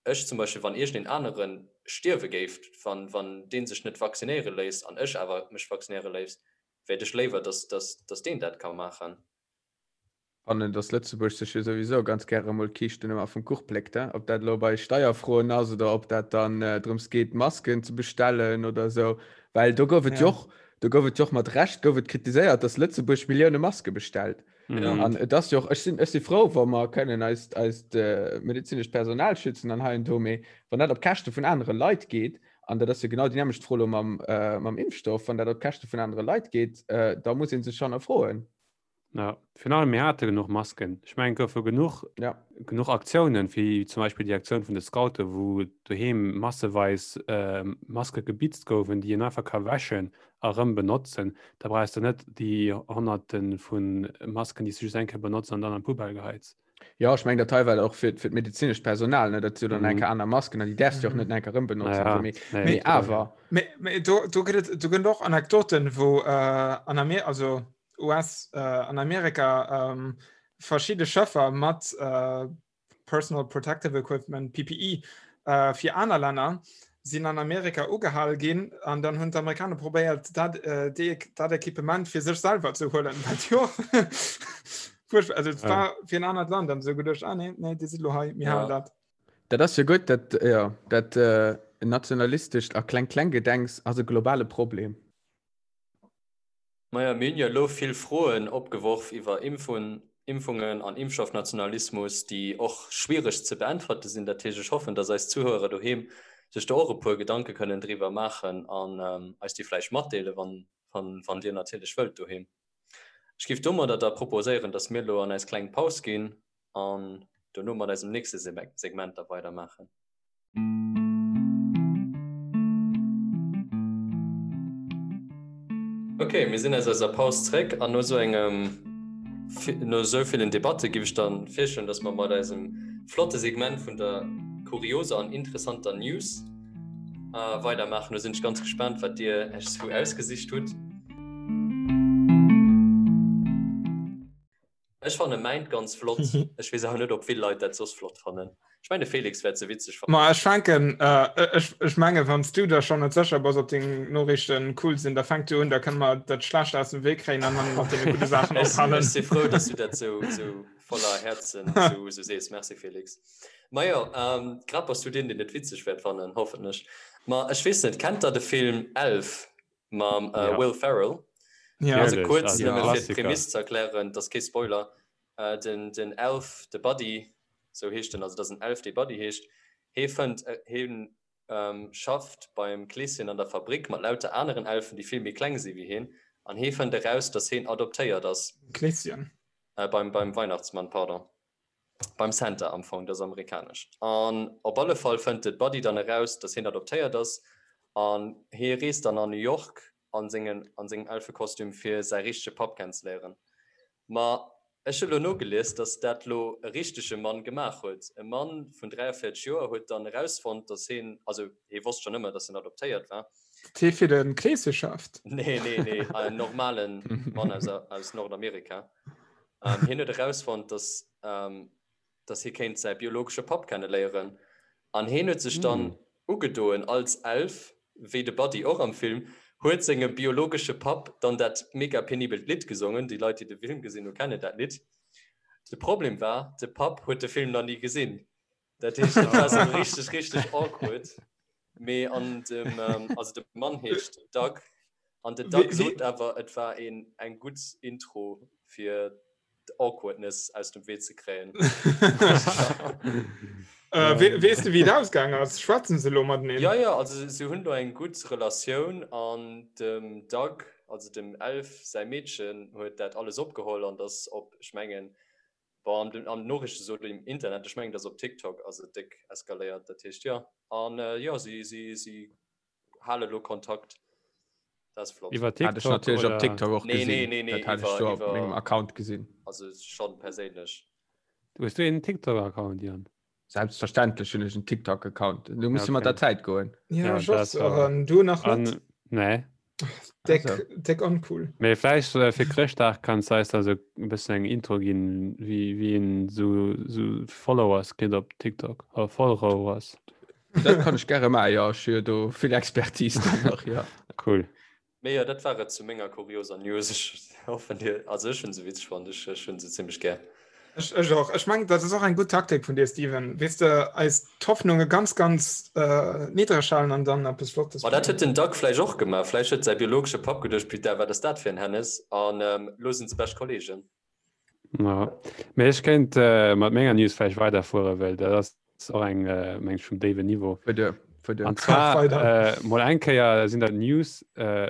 ech zum Beispill, wann iergendeen anere stierwe géif, wann, wann dee sech net vaccinéiere léisst an ech awer mech vaccinéiere léisst, wäert ech léiwer, dass, dass, dass deen dat ka maachen. Fannen, dass Lëtzebuerg sech jo souwisou ganz gäre mol d'Kiischten ëmmer vum Kuch pléckt, he? Ob dat elo bei Steierfroen ass oder ob dat dann drëms geet, Masken ze bestellen oder esou. Well do gouf et jo och, do gouf et jo och mat Recht gouf et kritiséiert, dass Lëtzebuerg Millioune Maske bestellt. An et ass jo och, ech sinn, ech si frou, wa mer kënnen eist, eist medezinescht Personal schützen an hei an do, mee wann dat op Käschte vun anere Leit geet, an dat ass jo genau déi nämmlecht Fro elo mam, mam Impfstoff, wann dat op Käschte vun anere Leit geet, da muss ee sech hannerfroen. Ja, virun allem mir hate genuch Masken. Ech mengen, et goufe genuch, ja. genuch Aktiounen, wéi zum Beispill déi Aktioun vun de Scouten, wou doheem masseweis äh, Maske gebitzt goufen, déi een einfach ka wäschen a rëm benotzen. Da brauchs de net déi Honnerte vu Masken, déi s du just eng Kéier benotz an dann an d'Poubelle geheits. Ja, ech meng dat hei war och fir, fir d'medezinescht Personal, ne, dat si jo dann eng Kéier aner Masken an déi däerfs du och net eng Kéier rëm benotzen. Ja, so, mee, nee, mee awer. Mee, mee do, do gëtt et, do gëtt och Anekdoten, wou äh, an Amer also US äh, an Amerika ähm, verschidde Schëffer mat äh, Personal Protective Equipment PPE äh, fir aner Länner sinn an Amerika ugehal ginn an dann hunn d'Amerikaner probéiert dat, äh, déi, dat Equipement fir sech selwer ze huelen. Wat jo furchtbar, also et Ja. war fir en anert Land an sou geduecht, ah nee, nee, déi si lo hei, mir Ja. halen dat. Dat ass jo gutt, dat, ja, dat äh, nationalistescht a Kleng-Kleng-Gedenks ass e globale Problem. Maja, mir hunn jo elo vill Froen opgeworf iwwer Impfungen an Impfstoffnationalismus, déi och schwiereg ze beäntwerte sinn. Dat heescht, ech hoffen, dass eis Zuhörer doheem sech do och e puer Gedanke kënnen driwwer maachen an eis déi vläicht matdeelen, wann Dir natierlech wëllt doheem. Ech géif domadder da proposéieren, dass mir elo an eis kleng Paus ginn an dono mat eisem nächste Segment da weidermaachen. Ok, mir sinn aus eiser Paus zréck an no sou engem no sou villen Debatte giff ech dann virschloen, dass mer mat eisem flotte Segment vun der kurioser an interessanter News weidermaachen. Do sinn ech ganz gespaant, wat dir Iech sou ausgesicht hutt. Ech fanne mäint ganz flott. Ech weess awer net, ob vill Leit dat soss flott fannen. Ech mengen, de Felix wäert se witzeg fannen. Ma ech fänken, ech, ech menge wann s du der schonn net sécher bass, ob deng Noriichten cool sinn, da fänk du un, da kënne mer dat Schlecht aus dem Wee kréien an dann mat deene gudde Saachen Ech, ophalen. ech si frou, dass du dat sou, sou voller Häerzen sou, sou sees. Merci, Felix. Majo, grad bass du deen, deen et witzeg wäert fannen, hoffentlech. Ma ech weess net, kennt der de Film Elf? mam äh, Ja. Will Ferrell. Ja. Also Natürlich, kurz also nëmme fir Klassiker. d'Prämiss ze erklären, dat ass kee Spoiler. Äh, den, den Elf, de Buddy, sou heescht en, also dat ass en Elf, dee Buddy heescht, hee fënnt, äh, heen ähm, schafft beim Kleeschen an der Fabrik mat lauter aneren Elfen, déi vill méi kleng si wéi heen. An hee fënnt eraus, dass heen adoptéiert ass. Kleeschen. Äh, beim, beim Weihnachtsmann, pardon. Beim Santa am Fong, dat ass amerikanesch. An op alle Fall fënnt de Buddy dann eraus, dass heen adoptéiert ass. An hee reest dann an New York an sengen, an sengem Elfekostüm, fir säi richtege Papp kennenzeléieren. Ma ech hu lo nogelies, dass dat lo e richtege Mann gemaach huet. E Mann vun 43 Joer huet dann erausfonnt, dass heen, also hee wosst schonn ëmmer, dass hien adoptéiert war. Dat hee fir de Kleesche schafft? Nee, nee, nee, en normale Mann aus, aus Nordamerika. Hien huet erausfonnt, dass, dass hie kéint säi biologesche Papp kenneléieren. An hien huet sech dann ugedoen als Elf, wéi de Buddy och am Film, huet sengem biologesche Papp dann dat mega penibelt Lidd gesongen. Déi Leit, déi de Film gesinn hunn, kennen dat Lidd. De Problem war, de Papp huet de Film nach ni gesinn. Dat heescht, dat war sou richteg, richteg awkward. Mee an dem, also de Mann heescht Doug, an den Doug sot awer, et war een eng gutt Intro fir d'Awkwardness aus dem Wee ze kréien. Äh, we weess de wéi et ausgaang ass? Schwätzen se elo mateneen? Ja, ja, also se hunn do eng gutt Relatioun an dem Doug, also dem Elf säi Meedchen huet dat alles opgeholl an dass op, ech mengen, bon, an den an den Noriichte sot im Internet, ech mengen, dass op TikTok ass et déck eskaléiert, dat heescht jo an jo, si si si hale lo Kontakt. Dat ass flott. Iwwer Hat ech TikTok natierlech op oder? TikTok och Nee, gesinn. nee, nee, nee, Dat hat ech iwwer do op iwwer mengem Account gesinn. also schonn perséinlech. Hues du een TikTok-Account, Jan? Selbstverständlech hunn ech en TikTok-Account. Du muss Ja, mat der okay. Zäit goen. Ja, Ja, ech och dat so. war. An du nach net? An, nee. Deck, Also. deck uncool. Mee vläicht äh, fir Chrëschtdag kanns du eis da sou e bëssen eng Intro ginn, wéi, wéi een sou, sou Followers kritt op TikTok. Oder Followers. Dat kann ech gäre maachen, jo. Ech hu jo do vill Expertise dann nach, jo. Cool. Mee jo, dat war et zu menger kurioser News. Ech hoffen dir, also ech hunn se witzeg fonnt, ech ech hunn se zimmlech gär. Ech ech och. Ech mengen, dat ass och eng gutt Taktik vun dir, Steven. Weess de, eis d'Hoffnunge ganz, ganz niddreg halen an dann eppes Flottes Ma dat bréngen. huet den Doug vläicht och gemaach. Vläicht huet säi biologesche Papp geduecht, Putain, wat ass dat fir en Hennes? An elo sinn se bescht Kollegen. Ja. Mee ech kéint äh, mat menger News vläicht weiderfueren, well dat ass och eng äh, meng ech vum déiwen Niveau. Fuer duer, fuer duer. An zwar Weider. äh, mol eng Kéier sinn dat News, äh,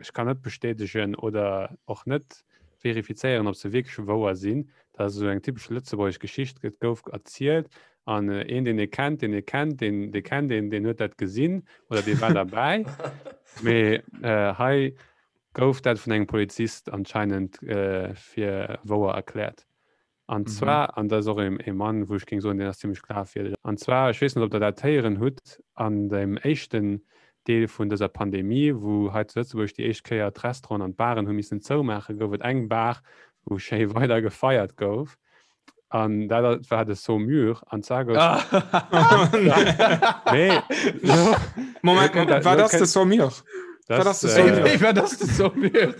ech kann net bestätegen oder och net verifizéieren, ob se wierklech wouer sinn. Dat ass esou eng typesch lëtzebuergesch Geschicht, et gouf erzielt an äh, een, deen ee kennt, deen ee kennt, deen, dee kennt een, deen huet dat gesinn oder dee war derbäi. Mee äh, hei gouf dat vun engem Polizist anscheinend fir wouer erkläert. An mhm. zwar, an dat ass och e Mann, wou ech géing soen, deen ass zimmlech glafwierdeg. An zwar, ech weess net, ob der dat héieren hutt, an dem éischten Deel vun dëser Pandemie, wou hei zu Lëtzebuerg déi éischt Kéier d'Restauranten an d'Baren hu missen zoumaachen, gouf et eng Bar, wou schéi weider gefeiert gouf. An dat war de Saumur. An zwar gouf. Nee. Moment, Moment, wat ass de Saumur? Wat ass de Saumur? Äh, wat ass de Saumur?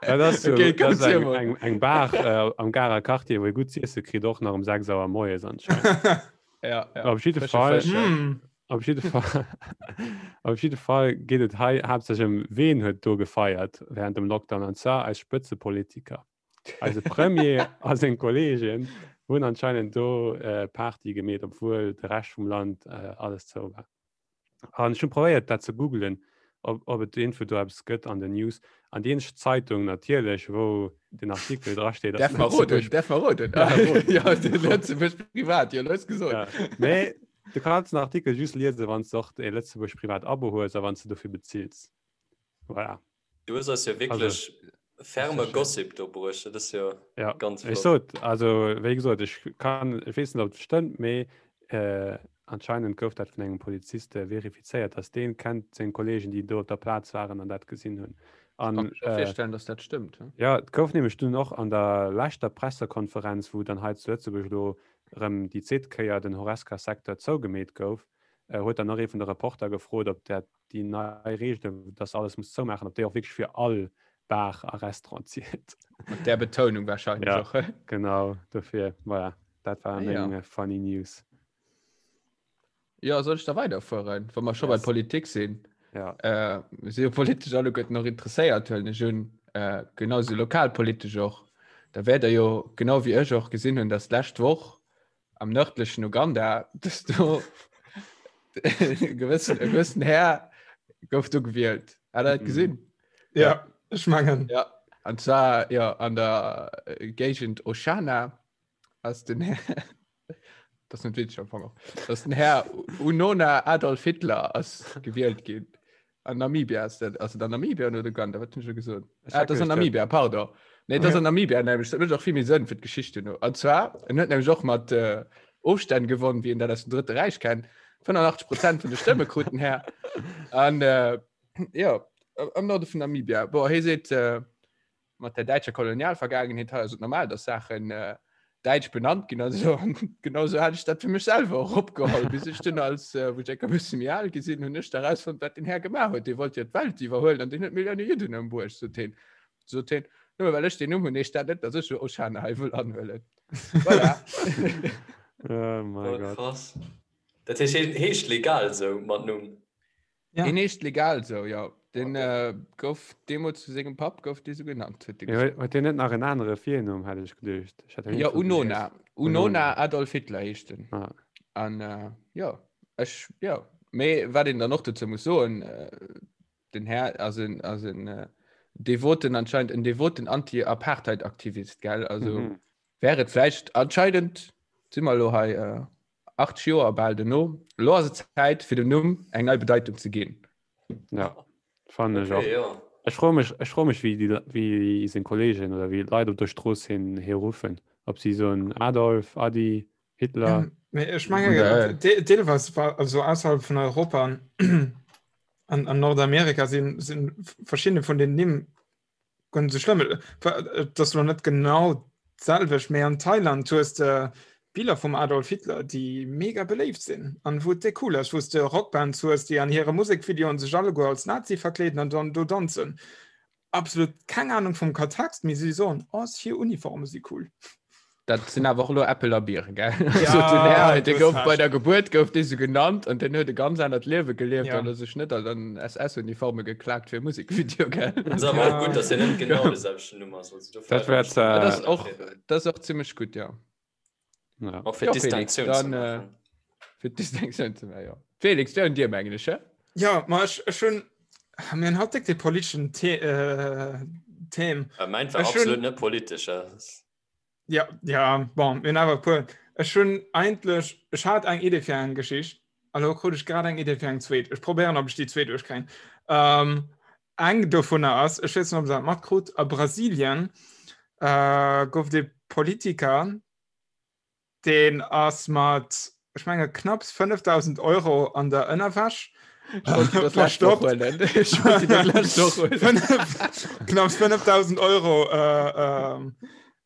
Dat ass, so, Okay, dat ass komm, eng, Simon. eng, eng Bar äh, am Garer Quartier, wou ee gutt z'iesse kritt, och nach um 6 Auer moies anscheinend. Ja, ja. Op jidde Frësche Fall. Fësch, ja. Mm. Op jidde Fall, op jidde Fall geet et hei haaptsächlech ëm, ween huet do gefeiert während dem Lockdown, an zwar eis Spëtzepolitiker. Eise Premier a seng Kolleegen hunn anscheinend do äh, Party gemeet, obwuel de Rescht vum Land äh, alles zou war. An ech hunn probéiert dat ze googlen, ob, ob et irgendwou do eppes gëtt an den News. An déi eenzeg Zeitung natierlech, wou den Artikel dra steet, ass Därf mer roden, Lëtzebuerg. därf mer roden. Ja, roden. Ja, de Lëtzebuerg Privat, jo, lues gesot. Ja. Mee du kanns den Artikel just liesen, wann s de och e Lëtzebuerg Privat Abo hues a wann s de dofir bezills. Voilà. Du hues eis jo wierklech ferme Gossip do bruecht. Dat ass jo ja. ganz Ech flott. sot, also wéi gesot, ech kann, ech weess net, ob et stëmmt, mee äh, anscheinend gouf dat vun engem Polizist äh, verifizéiert, dass deen kennt seng Kollegen, déi do op der Plaz waren an dat gesinn hunn. Kann An mech och äh, virstellen, dass dat stëmmt. hm? ja, et gouf nämlech dunn och an der leschter Pressekonferenz, wou dann hei zu Lëtzebuerg elo erëm déi zweet Kéier den Horesca-Secteur zougemeet gouf, äh, huet dann och ee vun de Reporter gefrot, ob dat déi nei Reegelen, dass alles muss zoumaachen, ob déi och wierklech fir all Bar a Restaurant zielt. Mat där Betounung wahrscheinlech Ja. och. hä? Genau, dofir, voilà, dat war Ah, ja. meng funny News. Ja, soll ech da weiderfueren, wa mer scho bei Yes. Politik sinn? Ja. Äh, mir si jo politesch alleguerten och interesséiert, huelen ech un, äh, genauso lokalpolitesch och. Da wäert der jo, genau wéi ech och, gesinn hunn, dass d'lescht Woch am nërdlechen Uganda, dass do e gewëssen, e gewëssen Här gouf do gewielt. Hat der dat Mhm. gesinn? Ja, ech mengen. Ja. An zwar ja, an der äh, Géigend Oshana ass den Här das net witzeg am Fong och. Dass den Här Unona Adolf Hitler ass gewielt ginn. An Namibia ass dat, ass et an Namibia oder Uganda? Wat hunn ech elo gesot? Ah, dat ass an Namibia, pardon. Nee, dat ass an Namibia nämlech. Dat mécht och vill méi Sënn fir d'Geschicht duerno. An zwar, en huet nämlech och mat äh, Ofstänn gewonnen, wéi een dat aus dem Drëtte Räich kennt. 85 Prozent vun de Stëmme krut den Här. An äh, ja, am Norde vun Namibia. Boah, hie seet, äh, mat der däitscher Kolonialvergaangenheet hei ass et normal, dass Saachen äh, däitsch benannt ginn an so. An genau so hat ech dat fir mech selwer och opgeholl, bis ech dunn als äh, wou ech enker bësse méi al gi sinn, hunn ech da rausfonnt, wat den Här gemaach huet. Dee wollt jo d'Welt iwwerhuelen an deen huet Millioune Judden ëmbruecht, sot hien. Sot hien, nëmme well ech deen Numm hunn, heescht dat net, dass ech lo Oshana hei wëll anhuelen. Voilà. Oh mein Oh, Gott. krass. Dat heescht, hien heescht legal sou mat Numm? Ja. Deen heescht legal sou, jo. Den äh, gouf deemools vu sengem Papp gouf dee sou genannt, huet dee Ja, gesot. huet deen net nach en anere Virnumm, hat ech geduecht. Ech hat Ja, iergendwou Unona. gelies. Unona Unona. Adolf Hitler heescht en. Ah. An äh, jo, ech, jo. Mee wat een dann och dozou muss soen, äh, den Här ass en, ass en äh, devoten, anscheinend en devoten Anti-Apartheid-Aktivist, gell? Also Mhm. wär et vläicht anscheinend, si mer elo hei äh, 80 Joer bal duerno, elo ass et Zäit fir dem Numm eng nei Bedeitung ze ginn. Ja, fannen ech Okay, och. jo. Ech froe mech, ech froe mech wéi déi, wéi seng Kollegen oder wéi d'Leit op der Strooss hien hie ruffen. Ob si soen Adolf, Adi, Hitler. Ja, mee ech menge Nee. de- deelweis war also ausserhalb vun Europa an, an, an Nordamerika sinn sinn verschiedene vun den Nimm Ganz so schlimm. Et ass lo net genau d'selwecht, mee an Thailand hues de Biller vum Adolf Hitler, déi mega beléift sinn an wou et déck cool ass, wou s de Rockbands hues, déi an hire Musekvideoen sech alleguer als Nazi verkleeden an dann do danzen. Absolut keng Ahnung vum Kontext, mee si soen, oh, hir Uniforme si cool. Dat sinn awer och elo Äppel a Bieren, gell? Ja, Also den Här, dee du gouf hues bei recht. der Gebuert gouf dee sou genannt an den huet e ganz anert Liewe gelieft Ja. an huet sech net an SS-Uniforme geklaakt fir e Musekvideo, gell? Ass awer och Ja. gutt, dass hien net genau de selwechten Numm ass. Also dofir Dat wär Dat äh, ass och, dat ass och zimmlech gutt, ja. ja. Och fir Ja, Felix, Distinctioun ze dann, äh, maachen. fir d'Distinctioun ze maachen, ja. Felix, wär un dir, mengen ech, hä? Ja, ma ech, ech hunn, mir hunn haut déck dee politeschen The äh, Theme. Äh, Mäint war Ech hunn- absolut net politesch. äh. Ja, ja, bon, mir hunn awer e puer. Ech hunn eigentlech, ech hat eng Idee fir eng Geschicht, a lo krut ech grad eng Idee fir eng zweet. Ech probéieren, ob ech déi zweet duerchkréien. Ähm, eng dovunner ass, ech weess net, ob der dat matkrut, a Brasilien äh, gouf et ee Politiker, Deen ass mat, ech menge knapps 5.000 Euro an der Ënnerwäsch verstoppt. Knapps 5.000 Euro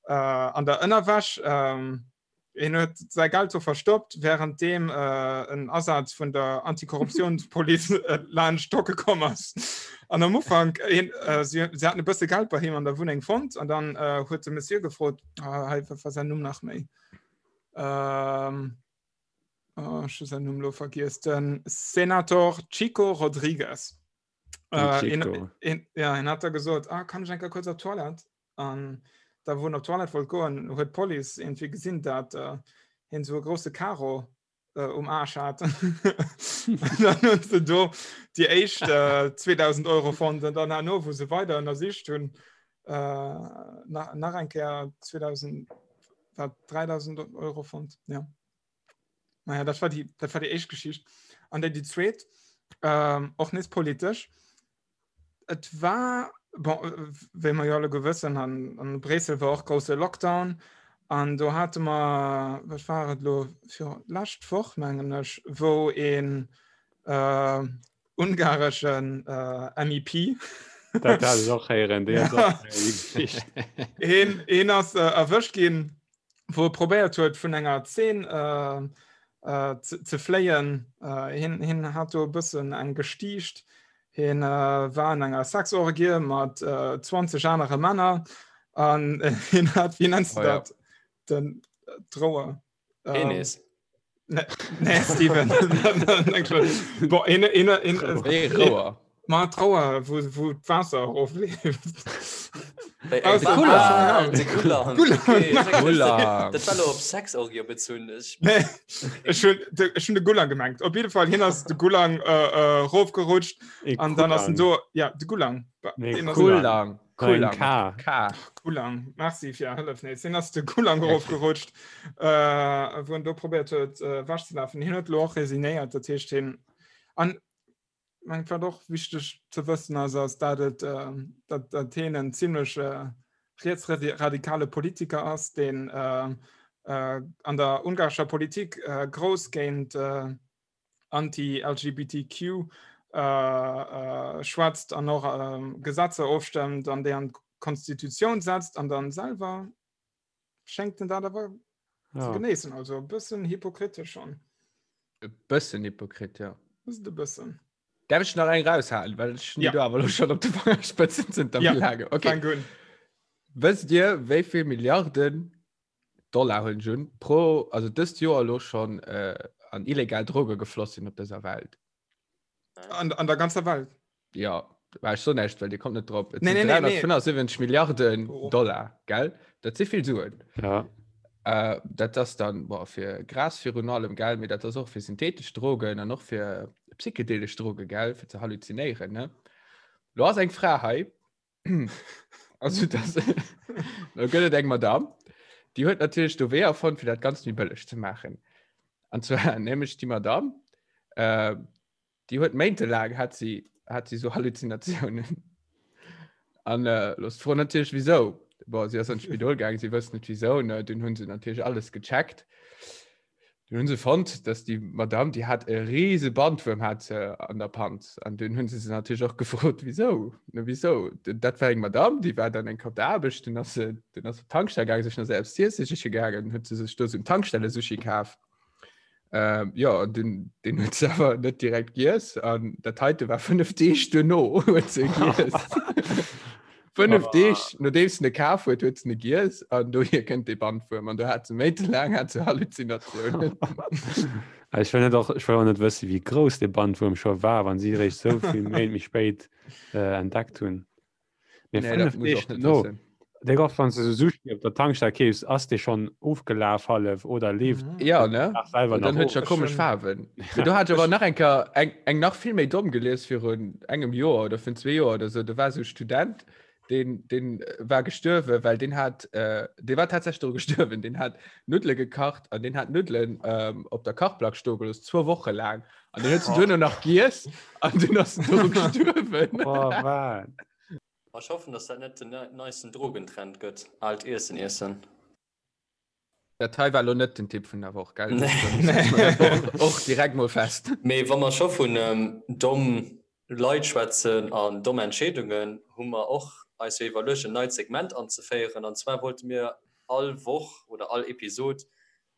an der Ënnerwäsch. Hien huet säi Geld do verstoppt, wärenddeem en Asaz vun der Antikorruptiounspolice laanscht docke komm ass. An am Ufank, si haten e bësse Geld bei him an der Wunneng fonnt an dann huet de Monsieur gefrot, hei, wat war säin Numm nach méi? Ähm, oh, ech hu säin Numm lo vergiess. Den Senator Chico Rodrigues. Den Äh, Chico. een, een, ja, en hat da gesot, ah, kann ech eng Kéier kuerz op d'Toilette? An da wou en op d'Toilette wollt goen, huet d'Police irgendwie gesinn, dat äh, hien esou e grousse Karo äh, um Arsch hat. Dann hunn se do déi éischt äh, 2000 Euro fonnt an dann herno, wou se weider ënnersicht hunn, äh, nach, nach eng Kéier 2000, wat 3000 Euro fonnt. Ja. Naja, dat war déi, dat war déi éischt Geschicht. An déi, déi zweet, ähm, och nees politesch. Et war, bon, wéi mer jo alleguer wëssen, an, an Bréissel war och grousse Lockdown. An do hate mer, wat war et elo, fir lescht Woch mengen ech, wou een äh, ungareschen äh, MEP Dat hat ech och héieren, déi ass och déi Geschicht. een, een ass äh, erwëscht ginn, wou e probéiert huet vun enger Zeen äh, äh, ze, ze fléien. Äh, hien, hien hat do e bëssen eng gestiicht. Hien äh, war an enger Sexorgie mat äh, 20 anere Männer an äh, hien hat, wéi nennst du Oh ja. dat? Den äh, d'Rouer. Ähm, Penis. Nee, nee Steven. Bon, een, een, een, Nee, Rouer. Ma Trauer wou wou d'Waasser erofleeft. Wéi Ah, eng de Wa- Gulang. Ah, de Gulang. Gulang. Okay, ech denken, Gulang. Dat war lo op Sexorgie bezunn. Ech Nee, ech hunn de, ech hunn de Gulang gemengt. Op jidde Fall hien ass de Gulang äh, äh, rofgerutscht E an dann ass en Kulang. do ja de Gulang. Ba- Nee, deen ass- Kulang. Kulang. Kulang. K. K. Gulang. Merci fir Är Hëllef nees. Hien ass de Gulang erofgerutscht, äh, wou en do probéiert huet äh, wech ze lafen. Hien huet lo och resignéiert, dat heescht hien an mengt wat och wichteg ze wëssen ass, ass dat et äh, dat, dat hien en zimmlech äh, rietsradikale Politiker ass, deen äh, äh, an der ungarescher Politik äh, grouss géint äh, anti-LGBTQ äh, äh, schwätzt an och äh, Gesetzer ofstëmmt an déi an d'Konstitutioun setzt an dann selwer schéngt en dat awer ja. ze genéissen. Also e bëssen hypokritesch schon. E bëssen Hypokrit, ja. Just e bëssen. Darf ich nach eng raushalen, well ech ja. du awer lo schon op de Fangerspëtzen sind ja. lange. Okay. Wësst Dir, wéi vill Milliarden Dollar hunn ech un pro also dëst Joer lo schon äh, an illegal Droge gefloss sinn op dëser Welt? An, an der ganzer Welt? Ja, war ech so näischt, well Dir kommt net drop. Et Nee, sinn nee, nee, nee. 375 Milliarden Oh. Dollar, gell? Dat si vill Suen. Ja. Äh, dat ass dann boah, fir Gras virun allem, gell? Mee dat ass och fir synthetesch Drogen an och fir psychedelesch Droge, gell? Fir ze halluzinéieren, ne? Lo ass eng Fra hei, Also das, da gëtt et eng Madame, déi huet natierlech do Weeër fonnt, fir dat Ganzt méi bëlleg ze maachen. An zwar nämlech déi Madame, äh, déi huet méintelaang hat si, hat si so Halluzinatiounen. An äh, los d'Fro natierlech wieso. Bon, si ass an d'Spidol gaang, si wësst net wieso, ne? Dunn hunn se natierlech alles gecheckt. Dunn hunn se fonnt, dass déi Madame, déi hat e riese Bandwuerm hat se an der Panz. An dunn hunn se se natierlech och gefrot, wieso? Ne, wieso? Dat war eng Madame, déi war dann eng Kéier op der Aarbecht, dunn ass se, dunn ass se op d'Tankstell gaangen, sech nach selbst z'iesse siche gaangen, huet se sech do esou en Tankstelle-Sushi kaf. Ähm, jo, an dunn, deen huet se awer net direkt giess. An dat heite war 5 Deeg duerno, huet se giess. 5 Deeg nodeems se e kaf huet, huet se e giess an dohier kënnt dee Bandwuerm. An do hat se méintelaang hat se Halluzinatiounen. Ech wëll net och, ech wëll och net wëssen, wéi grouss dee Bandwuerm scho war, wann si eréischt sou vill Méint méi spéit äh, entdeckt hunn. Mee Nee, dat 5 muss Deeg och net duerno, wëssen. Dee och wann s de sou Sushi op der Tankstell keefs, ass dee schonn ofgelaf hallef oder leeft Mhm. Ja, ne? nach selwer Und dann nach huet ja of. komesch Faarwen. Mee do hat ech awer nach eng Kéier eng, eng nach vill méi domm gelies virun engem Joer oder virun zwee Joer oder sou. Do war sou e Student, deen, deen war gestuerwen, well deen hat, äh, dee war tatsächlech doru gestuerwen, deen hat Nuddele gekacht an deen hat Nuddelen ähm, op der Kachplack stoe gelooss, zwou Woche laang. An deen huet se duerno nach giess an dunn ass en doru gestuerwen. Oh, wat? Ech hoffen, dass dat net den neisten Drogentrend gëtt, aalt Iessen iessen. Dat hei war lo net den Tipp vun der Woch, gell? Nee. Nee. Och direkt mol fest. Mee wa mer scho vun domm Leit schwätzen an domm Entscheedungen, hu mer och eis jo iwwerluecht, en neit Segment anzeféieren. An zwar wollte mir all Woch oder all Episod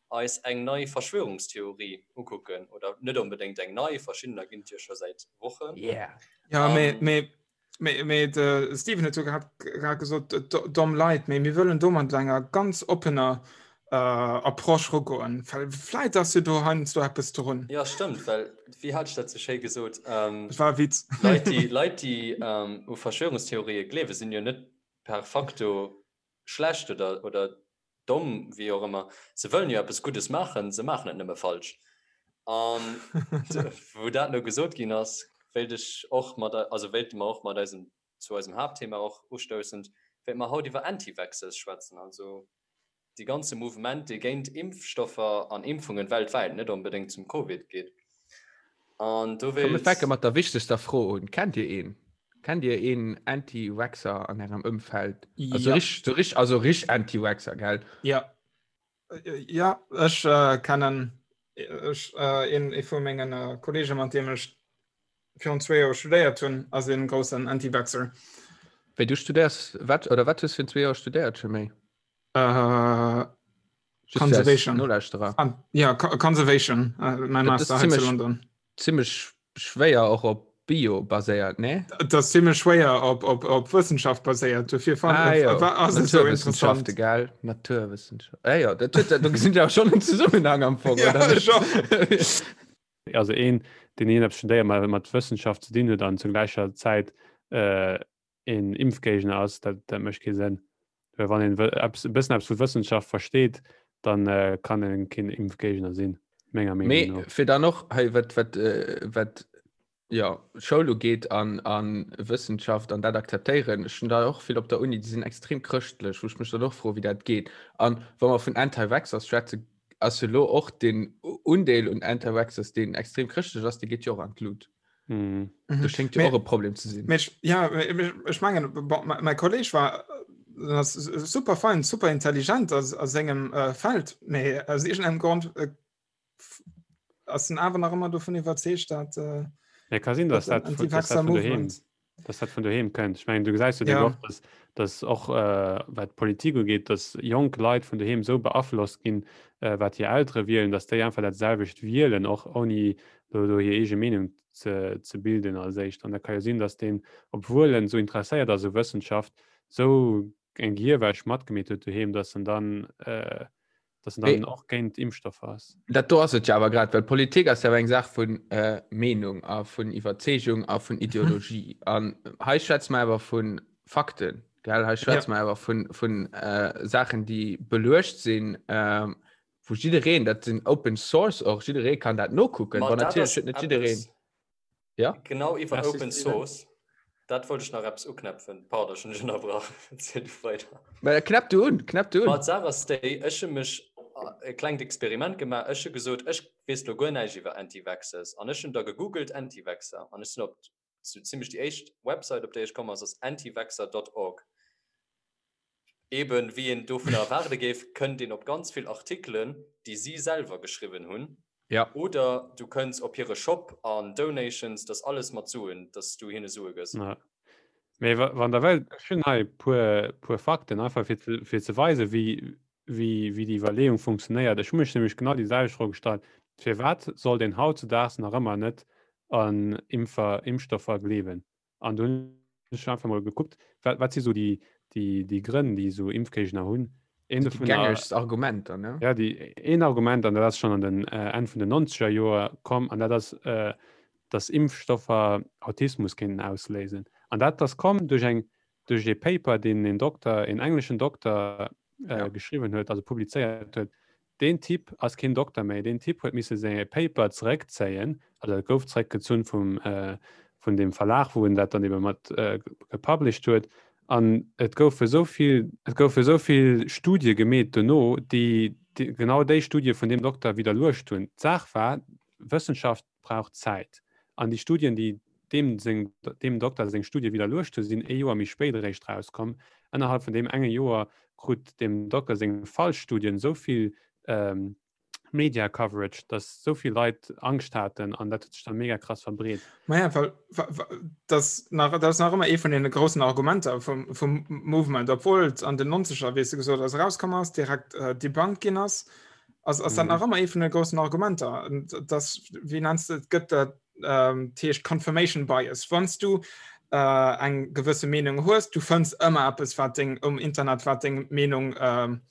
eis eng nei Verschwörungstheorie ukucken. Oder net onbedéngt eng nei, verschiddener ginn et jo scho säit Wochen. Yeah. Ja, mee, mee Mee, mee de Steven huet jo grad, grad gesot, domm Leit, mee mir wëllen do mat enger ganz oppener äh, Approche rugoen. Well vläit ass jo do heiansdo eppes drun. Ja, stëmmt, well wéi hat ech dat sou schéi gesot? Ähm, Dat war e Witz. Leit, déi, Leit, déi ähm, u Verschwörungstheorië gleewen, sinn jo net per facto schlecht oder, oder domm, wéi och ëmmer, se wëllen jo eppes Guddes maachen, se maachen et nëmme falsch. An wou dat elo gesot ginn ass, wéilt ech och mat, also wéilte mer och mat eisem, zu eisem Haaptthema och ustoussend, wéilte mer haut iwwer Anti-Vaxxers schwätzen, also dee ganze Mouvement, dee géint Impfstoffer an Impfungen weltwäit, net onbedéngt zum Covid, geet. An do Komm, mir wéilt. fänke mat der wichtegster Fro un, Kennt Dir een? Kennt Dir een Anti-Vaxxer an Ärem Ëmfeld? Also Ja. rich, so rich, also rich Anti-Vaxxer, gell? Ja. Ja, ech äh, kennen ech, äh, een, ee vu mengen äh, Kollegen, mat deem ech virun zwee Joer studéiert hunn, ass een groussen Anti-Vaxxer. Wéi du studéiers, wat, oder wat hues du virun zwee Joer studéiert, Jermaine? Äh, Conservation. Nolauschterer. Ah, ja, Conservation, äh, mein Master ziemlich, zu London. Ziemlich schwéier och op Bio baséiert, ne? Dat ass ziemlich schwéier op, op, op Wëssenschaft baséiert. Dofir fand ah, ja. war ass et so interessant. Gell? Naturwissenschaft. Ah, ja, dat, dat, dat, do gesinn ja schon en Zusammenhang am Fong. Ja, oder? Schon. Also een. deen iergendeppes studéiert mat mat Wëssenschaft ze dinn huet an zur gläicher Zäit äh, een Impfgéigner ass, dat, dat mécht kee Sënn. Well wann een eppes, e bëssen eppes vu Wëssenschaft versteet, dann äh, kann en keen Impfgéigner sinn, menger Meenung Mee no. fir dann och hei wat wat äh, wat ja Schoul ugeet an an Wëssenschaft an dat akzeptéieren, ech hunn da och vill op der Uni, déi sinn extrem chrëschtlech, wou ech mech dann och froe wéi dat geet. An wa mer vun Anti-Vaxxers schwätzen, ass jo lo och den Undeel un Anti-Vaxxers, deen extrem chrëschtlech ass, dee geet jo och an d'Lut. Mhm. Do schéngt jo och e Problem ze sinn. Mee ech, ja, ech mengen, bon, mäi Kolleg war ass super fein, super intelligent a, a sengem äh, Feld, mee aus iergendengem Grond äh, ass en awer nach ëmmer dovun iwwerzeegt, dat äh, Ja, ka sinn, dass dat, vun, dass dat vun doheem, dass dat vun doheem kënnt. Ech mengen, du gesäis jo ja. och, dass, dass och äh, wat d'Politik ugeet, dass jonk Leit vun doheem sou beaflosst ginn, äh, wat hir Eltere wielen, dass déi einfach dat selwecht wielen, och ouni do, do hir eege Meenung ze, ze bilden als éischt. An da ka jo sinn, dass deen, obwuel en sou interesséiert ass u Wëssenschaft, sou eng Gehirwäsch matgemeet huet doheem, dass en dann äh, dass en dann och géint Impfstoffer ass. Dat do ass et jo awer grad, well Politik ass jo awer eng Saach vun äh, Meenung a vun Iwwerzeegung a vun Ideologie. An hei schwätze mer awer vu Fakten, gell? Hei schwätze mer awer vun, vun äh, Saachen, déi beluecht sinn, äh, wou jiddereen, dat sinn Open Source och, jidderee kann dat nokucken. Ma Bon, dat natierlech ass huet net jiddereen. eppes, Ja? Genau iwwer Merci, Open Steven. Source, dat wollt ech nach eppes uknäpfen. Pardon, ech hunn dech ënnerbrach. Erziel du weider. Mä knäpp du un, knäpp du un. Ma d'Saach ass déi, ech hu mech e klengt Experiment gemaach. Ech hu gesot, ech weess lo guer näischt iwwer Anti-Vaxxers. An ech hunn da gegoogelt Anti-Vaxxer an ech sinn op sou zimmlech déi éischt Website, op déi ech komm ass, ass antivaxxer dot org. Eben, wéi een dovunner erwaarde géif, kënnt een op ganz vill Artikelen, déi si selwer geschriwwen hunn. Ja. Oder du kënns op hire Shop an Donations, dat ass alles mat Suen, dass du hinne Sue gëss. Ja. Mee wann der wëllt, ech hunn hei e puer, puer Fakten, einfach fir ze, fir ze weisen, wéi, wéi, wéi déi Iwwerleeung funktionéiert. Ech hu mech nämlech genau déi selwecht Fro gestallt, Firwat sollt een hautzedaags nach ëmmer net an Impfer, Impfstoffer gleewen? An du hunn ech einfach mol gekuckt, wat, wat si so déi, déi, déi Grënn, déi esou Impfgéigner hunn. Een Déi dovunner, gängegst Argumenter, ne? ja, déi, een Argument, an dat ass schonn an den äh, Enn vun den 90er Joer komm, an dat ass, äh, dass Impfstoffer Autismus kéinten ausléisen. An dat ass komm duerch eng, duerch ee Paper, deen een Dokter, een engleschen Dokter äh, Ja. geschriwwen huet, also publizéiert huet, Deen Typ ass keen Dokter méi. Deen Typ huet misse säi Paper zeréckzéien, also et gouf zeréckgezunn vum, vun deem Verlag, wou en dat dann ebe mat gepublished huet. An et goufe esou vill, et goufe esou vill Studie gemeet dono, déi genau déi Studie vun deem Dokter widderluecht hunn. D'Saach war, Wëssenschaft brauch Zäit. An déi Studien, déi deem seng, deem Dokter seng Studie widderluecht hunn, sinn ee Joer méi spéit eréischt rauskomm. Ënnerhalb vun deem enge Joer krut deem Dokter seng falsch Studien esou vill Media Coverage, datt esou vill Leit Angscht haten an dat huet sech dann mega krass verbreet. Maja, well dat nach, dat ass nach ëmmer ee vun deene groussen Argumenter vum, vum Movement, obwuel et an den Nonzeger, wéi s de gesot hues, erauskomm ass, direkt debunked ginn ass. Ass, ass dat nach mhm. ëmmer ee vun de groussen Argumenter. Das, wie nennst du, gëtt dat ähm, heescht Confirmation Bias. Wann du äh, eng gewësse Meenung hues, du fënns ëmmer eppes wat deng um Internet wat deng Meenung ähm,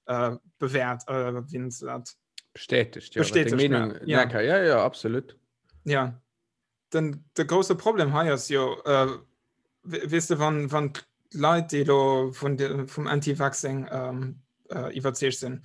äh, bewährt äh, wie nennst du dat? Bestätigt, ja, Bestätigt, Meenung, ja. Ja, ja, ja, absolut. Ja. Den, de grouse Problem hei ass jo äh, weess de wann, wann d'Leit déi lo vun de, vum Anti-Vaccing ähm, äh, iwwerzeegt sinn,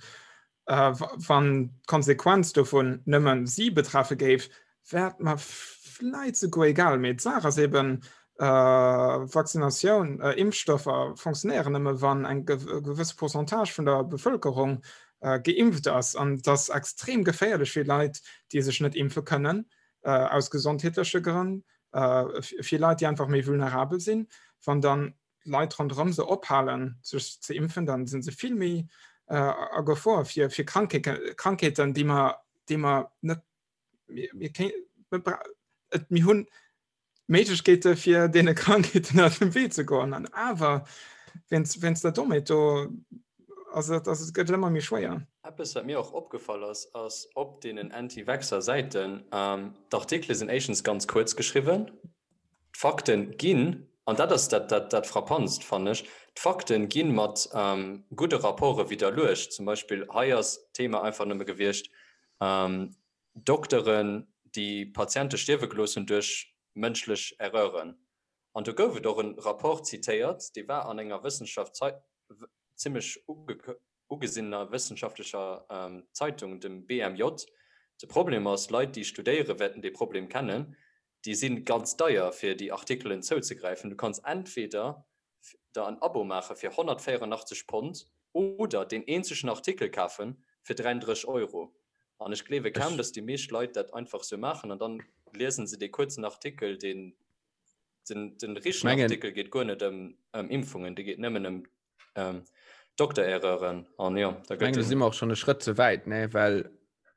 äh, wann d'Konsequenz dovun nëmmen si betreffe géif, wär et mer vläit souguer egal. Mee d'Saach ass eben, äh, Vaccinatioun, äh, Impfstoffer funktionéieren nëmme wann eng gewësse Pourcentage vun der Bevëlkerung äh, geimpft ass. An et ass extrem geféierlech fir Leit, déi sech net impfe kënnen, äh, aus gesondheetleche Grënn, äh, fir Leit, déi einfach méi vulnerabel sinn. Wann dann d'Leit ronderëm se ophalen, sech ze impfen, dann sinn se vill méi äh, a Gefor fir, fir Krankheeten, déi mer, déi mer net mir, mir, mir, et, mir hunn Méiglechkeete fir deene Krankheeten aus dem Wee ze goen. An awer, wéinst, wéinst der Dommheet do, ass et, ass et gëtt et ëmmer méi schwéier. Eppes wat mir och opgefall ass, ass op deenen Anti-Vaxxer-Säiten, d'Artikele sinn éischtens ganz kuerz geschriwwen, d'Fakten ginn, an dat ass dat dat dat Frappantst fannen ech, d'Fakten gi mat gudde Rapporte widderluecht. Zum Beispill hei ass d'Thema einfach nëmme gewiescht, Dokteren, déi Patiente stierwe gelooss hunn duerch mënschlech Erreuren. An do gouf et och e Rapport zitéiert, dee war an enger Wëssenschaft zimmlech ugesinner wëssenschaftlecher Zeitung, dem BMJ. De Problem ass, Leit, déi studéieren, wäerten dee Problem kennen, déi si ganz deier, fir déi Artikelen zouzegräifen. Du kanns entweder der en Abo maache fir 184 Pond oder deen eenzegen Artikel kafe fir 33 Euro. An ech gleewe kaum, datt déi meescht Leit dat einfach sou maachen an dann liesen se dee kuerzen Artikel, deen den, den richtegen Artikel geet guer net ëm ëm Impfungen, dee geet nëmmen ëm ähm, Doktererreuren an jo, da gëtt. Do si mer och schonn e Schrëtt ze wäit, ne, well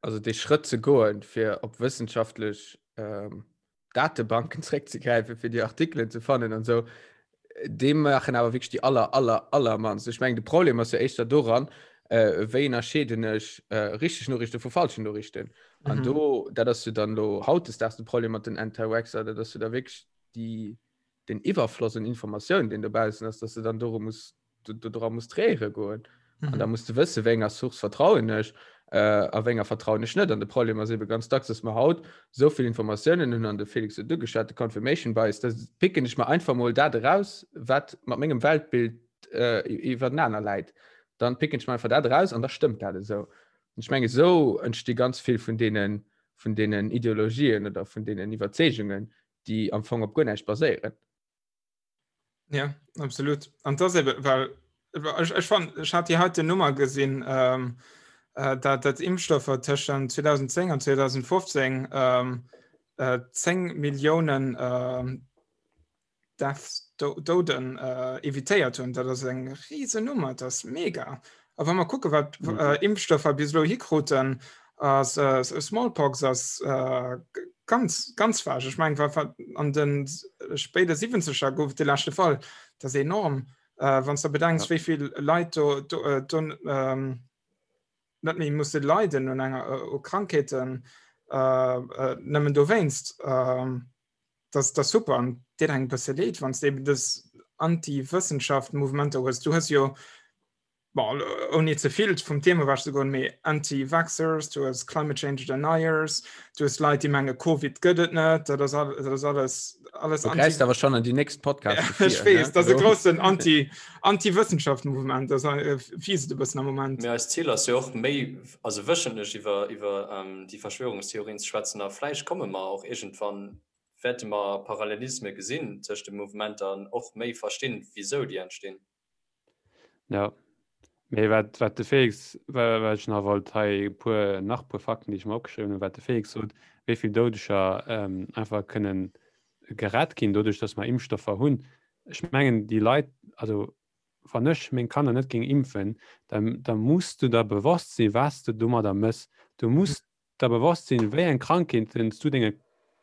also dee Schrëtt ze goen, fir op wëssenschaftlech ähm, Datebanken zréckzegräifen, fir déi Artikelen ze fannen an esou, dee maachen awer wierklech déi aller, aller, allermannst. Ech mengen, de Problem ass jo éischter doran, äh, wéi ënnerscheeden ech äh, richteg Noriichte vu falschen Noriichten. An mhm. do, dat ass jo dann lo hautdesdaags de Problem mat den Anti-Vaxxer, dat ass jo da wierklech déi, den Iwwerfloss un Informatioun, deen dobaussen ass, dass du dann doru muss dra muss tréiere goen. Mhm. An da musst du wësse wéi enger Source vertrauen ech äh, a wéi enger vertrauen ech net. An de Problem ass ebe ganz dacks, dass mer haut sou vill Informatiounen hunn an de Felix huet ugeschwat, de Confirmation Bias, da picken ech mer einfach mol dat eraus, wat mat mengem Weltbild äh, iwwernaner läit. Dann picken ech mer einfach dat eraus an da stëmmt dat esou. Und ich menge sou entsti ganz vill vun deenen vun deenen Ideologien oder vun deenen Iwwerzeegungen, déi am Fong op guer näischt baséieren. Ja, absolut. An das eben, weil ich, ich fand, ich hatte die heute Nummer gesehen, ähm, äh, dat, dat Impfstoffe zwischen 2010 und 2015 ähm, äh, 10 Millionen ähm, Deaths, Do Doden äh, evitéiert hunn. Dat ass eng riesen Nummer, das ist mega. A wa mer kucke wat mhm. äh, Impfstoffer bis elo hikruten, ass äh, Smallpox ass äh, ganz ganz vag. Ech meng war an den spéide 70er gouf de leschte Fall. Dat ass enorm. Äh, wann du bedenks, ja. wéivill Leit do, do, äh, do ähm, net méi musse leiden un enger äh, u Krankheeten äh, äh, nëmmen dowéinst. Äh, das, das super an dir eng bësse leed, wann du eben dës Anti-Wëssenschaft-Mouvementer hues. Du hues jo bon, ouni ze vill vum Thema ewech ze goen, mee Anti-Vaxxers, du hues Climate Change Deniers, du hues Leit, déi menge Covid gëtt et net, dat ass all, dat ass alles, alles Du gräifs awer schon an déi nächst Podcast Ech weess, dat ass e groussen Anti, Anti-Wëssenschaft-Mouvement, dat ass fies et e bëssen am Moment. Mee eist Zil ass jo och méi, also wëchentlech iwwer, iwwer déi Verschwörungstheorien ze schwätzen a vläicht komme mer och iergendwann, wäerte mer Parallelisme gesinn tëscht de Mouvementer an och méi verstinn, wisou déi entstinn. Ja. Mee wat, wat de Felix, wat ech nach wollt hei puer, nach puer Fakten, déi ech mer opgeschriwwen hunn, wat de Felix sot, wéi vill Doudeger ähm, einfach kënnen gerett ginn, doduerch, dass mer Impfstoffer hunn. Ech mengen, déi Leit, also wann ech meng Kanner net géing impfen, dann, da muss du der bewosst sinn, wat s du domadder mëss. Du muss der bewosst sinn, wéi eng Krankheeten s du denge,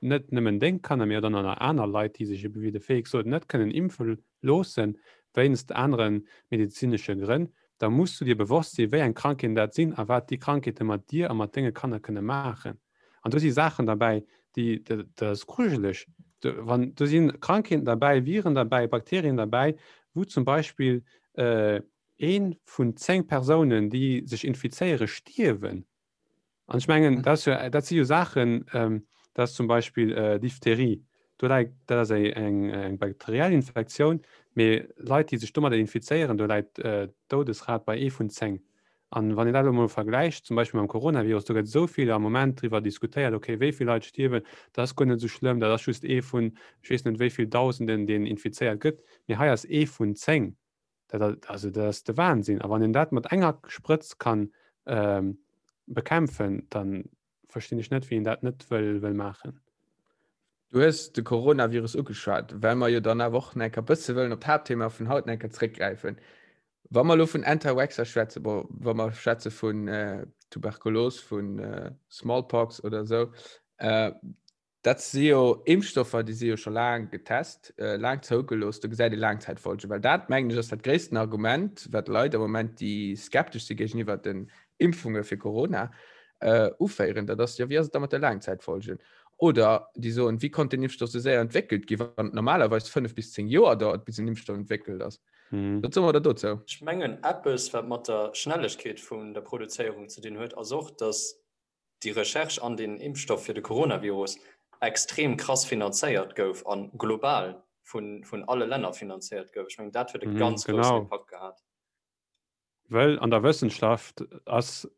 net nëmmen deng Kanner, mee och dann nach aner Leit, déi sech ebe wéi de Felix sot, net kënnen impfe loossen, wéinst anere medezinesche Grënn, da muss du dir bewosst sinn, wéi eng Krankheeten dat sinn a wat déi Krankheete mat dir a mat denge Kanner kënne maachen. An do si Saachen derbäi, déi, dat ass grujeleg, wann do si Krankheeten derbäi, Viren derbäi, Bakterien derbäi, wou zum Beispill ee vun 10 Persounen, déi sech infizéieren, stierwen. An ech mengen, dat ass jo, dat si jo Saachen, dat ass zum Beispill Diphtherie, do läit, dat ass eng eng bakteriell Infektioun, mee Leit, déi sech domadder infizéieren, do läit d'Doudesrat bei ee vun 10. An wann een dat elo mol vergläicht zum Beispill mam Coronavirus, do gëtt esou vill am Moment driwwer diskutéiert, okay, wéi vill Leit stierwen, dat ass guer net esou schlëmm, dat ass just ee vun ech weess net wéi vill Dausenden, deen infizéiert gëtt, mee hei ass ee vun 10. Dat, also dat ass de Wahnsinn. A wann een dat mat enger Sprëtz kann ähm, bekämpfen, dann verstinn ech net, wéi een dat net wëll, wëll maachen. Du hues de Coronavirus ugeschwat, well mer jo dann awer och nach eng Kéier bësse wëllen op d'Haaptthema vun haut nach eng Kéier zréckgräifen. Wa mer elo vun Anti-Vaxxer schwätzen, bon, wa mer schwätze vun äh, Tuberkulos, vun äh, Smallpox oder esou, äh, Dat si jo Impfstoffer, déi si jo scho laang getest, laang zougelooss, do gesäit ee Laangzäitfolgen. Well dat, mengen ech, ass dat gréissten Argument, wat Leit am Moment, déi skeptesch si géigeniwwer den Impfunge fir Corona, uféieren. Dat ass, jo, wéi ass et da mat de Laangzäitfolgen? Oder déi soen, wéi konnt deen Impfstoff esou séier entwéckelt ginn, wann et normalerweis 5 bis 10 Joer dauert, bis en Impfstoff entwéckelt ass? Wat soe mer da dozou? Ech mengen, eppes, wat mat der Schnellegkeet vun der Produzéierung ze dinn huet, ass och, datt. déi Recherche an deen Impfstoff fir de Coronavirus extrem krass finanzéiert gouf a global vun alle Länner finanzéiert gouf. Ech mengen, dat huet e ganz groussen Impakt gehat. Well an der Wëssenschaft ass,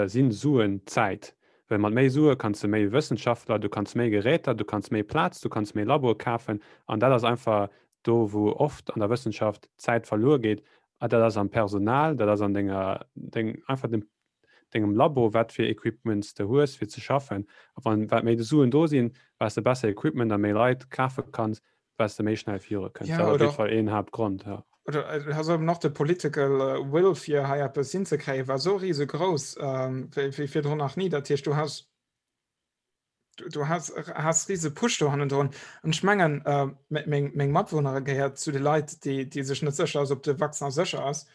sinn Suen Zäit. Well mat méi Sue kanns de méi Wëssenschaftler, du kanns méi Geräter, du kanns méi Plaz, du kanns méi Laboe kafen. An dat ass einfach do, wou oft an der Wëssenschaft Zäit verluer geet. A dat ass am Personal, dat ass an denger, deng, einfach dem, dengem Labo, wat fir Equipments de hues fir ze schaffen. A wann, wat méi Suen do sinn, wat s de besser Equipment a méi Leit kafe kanns, wat s de méi schnell viru kënns. Ja, Dat ass op oder jidde Fall een Haaptgrond, ja. Oder äh, has eben nach de political äh, will fir hei eppes hinzekréien, war so riesegrouss ähm, wéi, wéi virdrun nach nie. Dat heescht, du has du, du has, has riese Push do hannendrun. An ech mengen, äh, meng, meng Matwunnere gehéiert zu de Leit, déi, déi sech net sécher ass, ob de Vaccin sécher ass.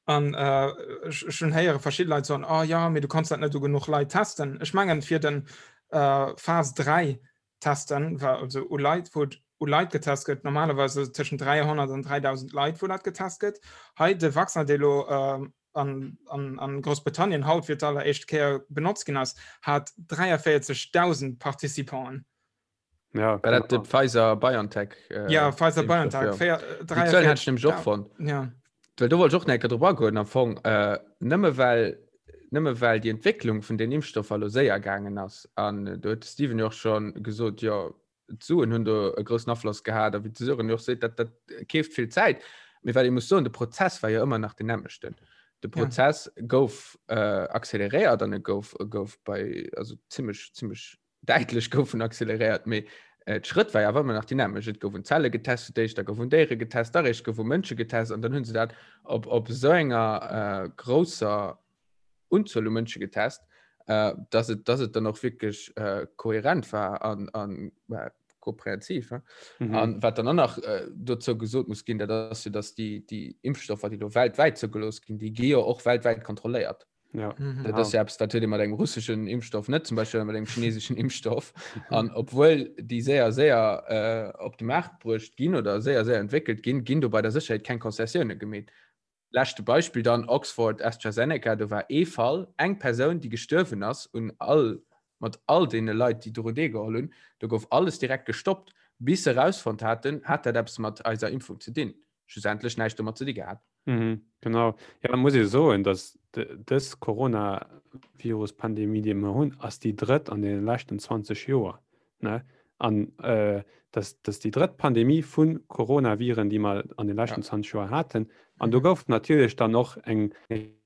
An äh, ech, ech hunn héiere verschidde Leit soen, oh ja, mee du kanns dat net u genuch Leit testen. Ech mengen, fir den äh, Phas 3 testen, war also u Leit, wou u Leit getest gëtt, normalerweise tëschent 300 an 3000 Leit, wou dat getest gëtt. Hei de Vaccin, dee lo äh, an, an, an Groussbritannien haut fir d'alleréischt Kéier benotzt ginn ass, hat 43.000 Participanten. Ja, War dat de Pfizer BioNTech? Äh, ja, Pfizer BioNTech. Ja. Déi Zuelen hat ech nämlech och fonnt. Ja. Well do wollt ech och nach eng Kéier drop agoen am Fong. Äh, nëmme well nëmme well déi Entwécklung vun den Impfstoffer lo séier gaangen ass an do huet de Steven jo och schon gesot, jo d'Suen hunn do e groussen Afloss gehat a wéi de Sören jo och seet, dat dat keeft vill Zäit. Mee wat ee muss soen, de Prozess war jo ëmmer nach den nämmlechten. De Prozess ja. gouf äh, acceleréiert an e gouf, e gouf bei also zimmlech zimmlech däitlech goufen acceleréiert, mee äh, d'Schrëtt war ja awer ëmmer nach déi nämmlecht. Et gouf un Zelle getest fir d'éischt, da gouf un Déiere getest, da réischt gouf u Mënsche getest an dann hunn se dat op, op esou enger äh, grousser Unzuel u Mënsche getest, äh, dass et, dass et dann och wierklech äh, kohärent war an, an äh, komprehensiv. Äh? Mhm. An wat dann och nach äh, dozou gesot muss ginn, dat ass jo, dass déi, déi Impfstoffer, déi do weltwäit zougelooss ginn, déi gi jo och weltwäit kontrolléiert. Ja. Mhm. Dat ass ja eppes, dat huet ee mat engem russeschen Impfstoff net, zum Beispill mat engem chinesischen Impfstoff. An obwuel déi séier séier äh, op de Maart bruecht ginn oder séier séier entwéckelt ginn, ginn do bei der Sécherheet keng Konzessioune gemeet. Leschte Beispill dann Oxford AstraZeneca, do war ee Fall, eng Persoun, déi gestuerwen ass un all mat all deene Leit, déi doru deelgeholl hunn. Do gouf alles direkt gestoppt, bis se erausfonnt haten, hat dat eppes mat eiser Impfung ze dinn. Schlussendlech näischt domat ze di gehat. Mhm, genau. Ja, da muss ee soen, datt dës Coronavirus-Pandemie, déi mer hunn, ass déi drëtt an deene leschten 20 Joer. Ne? An äh, dat ass déi drëtt Pandemie vu Coronaviren, déi mer an de leschten ja. 20 Joer haten. An do mhm. gouf natierlech dann och eng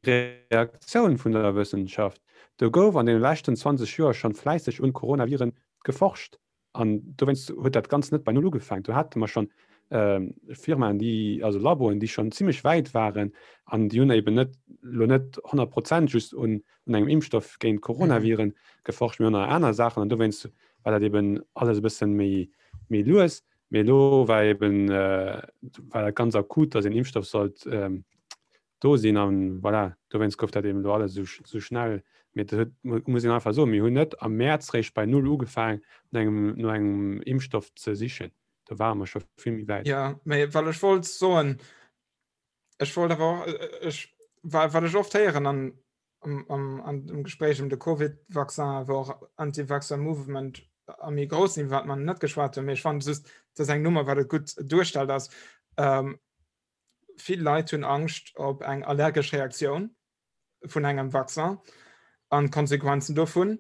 Reaktioun vun der Wëssenschaft. Do gouf an den leschten 20 Joer schon fläisseg un Coronaviren geforscht. An dowéinst huet dat Ganzt net bei Null ugefaangen. Do hate mer schonn Firmaen, déi, also Laboen, déi schonn zimmlech wäit waren an déi hunn eben net elo net 100 Prozent just un engem Impfstoff géint Coronaviren geforscht, mee och nach aner Saachen. An dowéinst war dat eben alles e bësse méi, méi lues. Mee elo war eben, war dat ganz akut, datt een Impfstoff sollt do sinn an voilà, dowéinst gouf dat eben elo alles esou esou schnell. Mee dat huet, muss een einfach soen, mir hunn net am Mäerz réischt bei Null ugefaang no engem no engem Impfstoff ze sichen. Do ware mer scho vill méi wäit. Jo, mee well ech wollt soen, ech wollt awer och, ech, well wat ech oft héieren an am am an dem Gespréich ëm de Covid-Vaccin, wou och Anti-Vaxxer Movement a méi grouss sinn, wat mer net geschwat hunn, mee ech fannen just, dat ass eng Nummer, wat et gutt duerstellt, ass, vill Leit hunn Angscht op eng allergesch Reaktioun vun engem Vaccin an d'Konsequenzen dovun.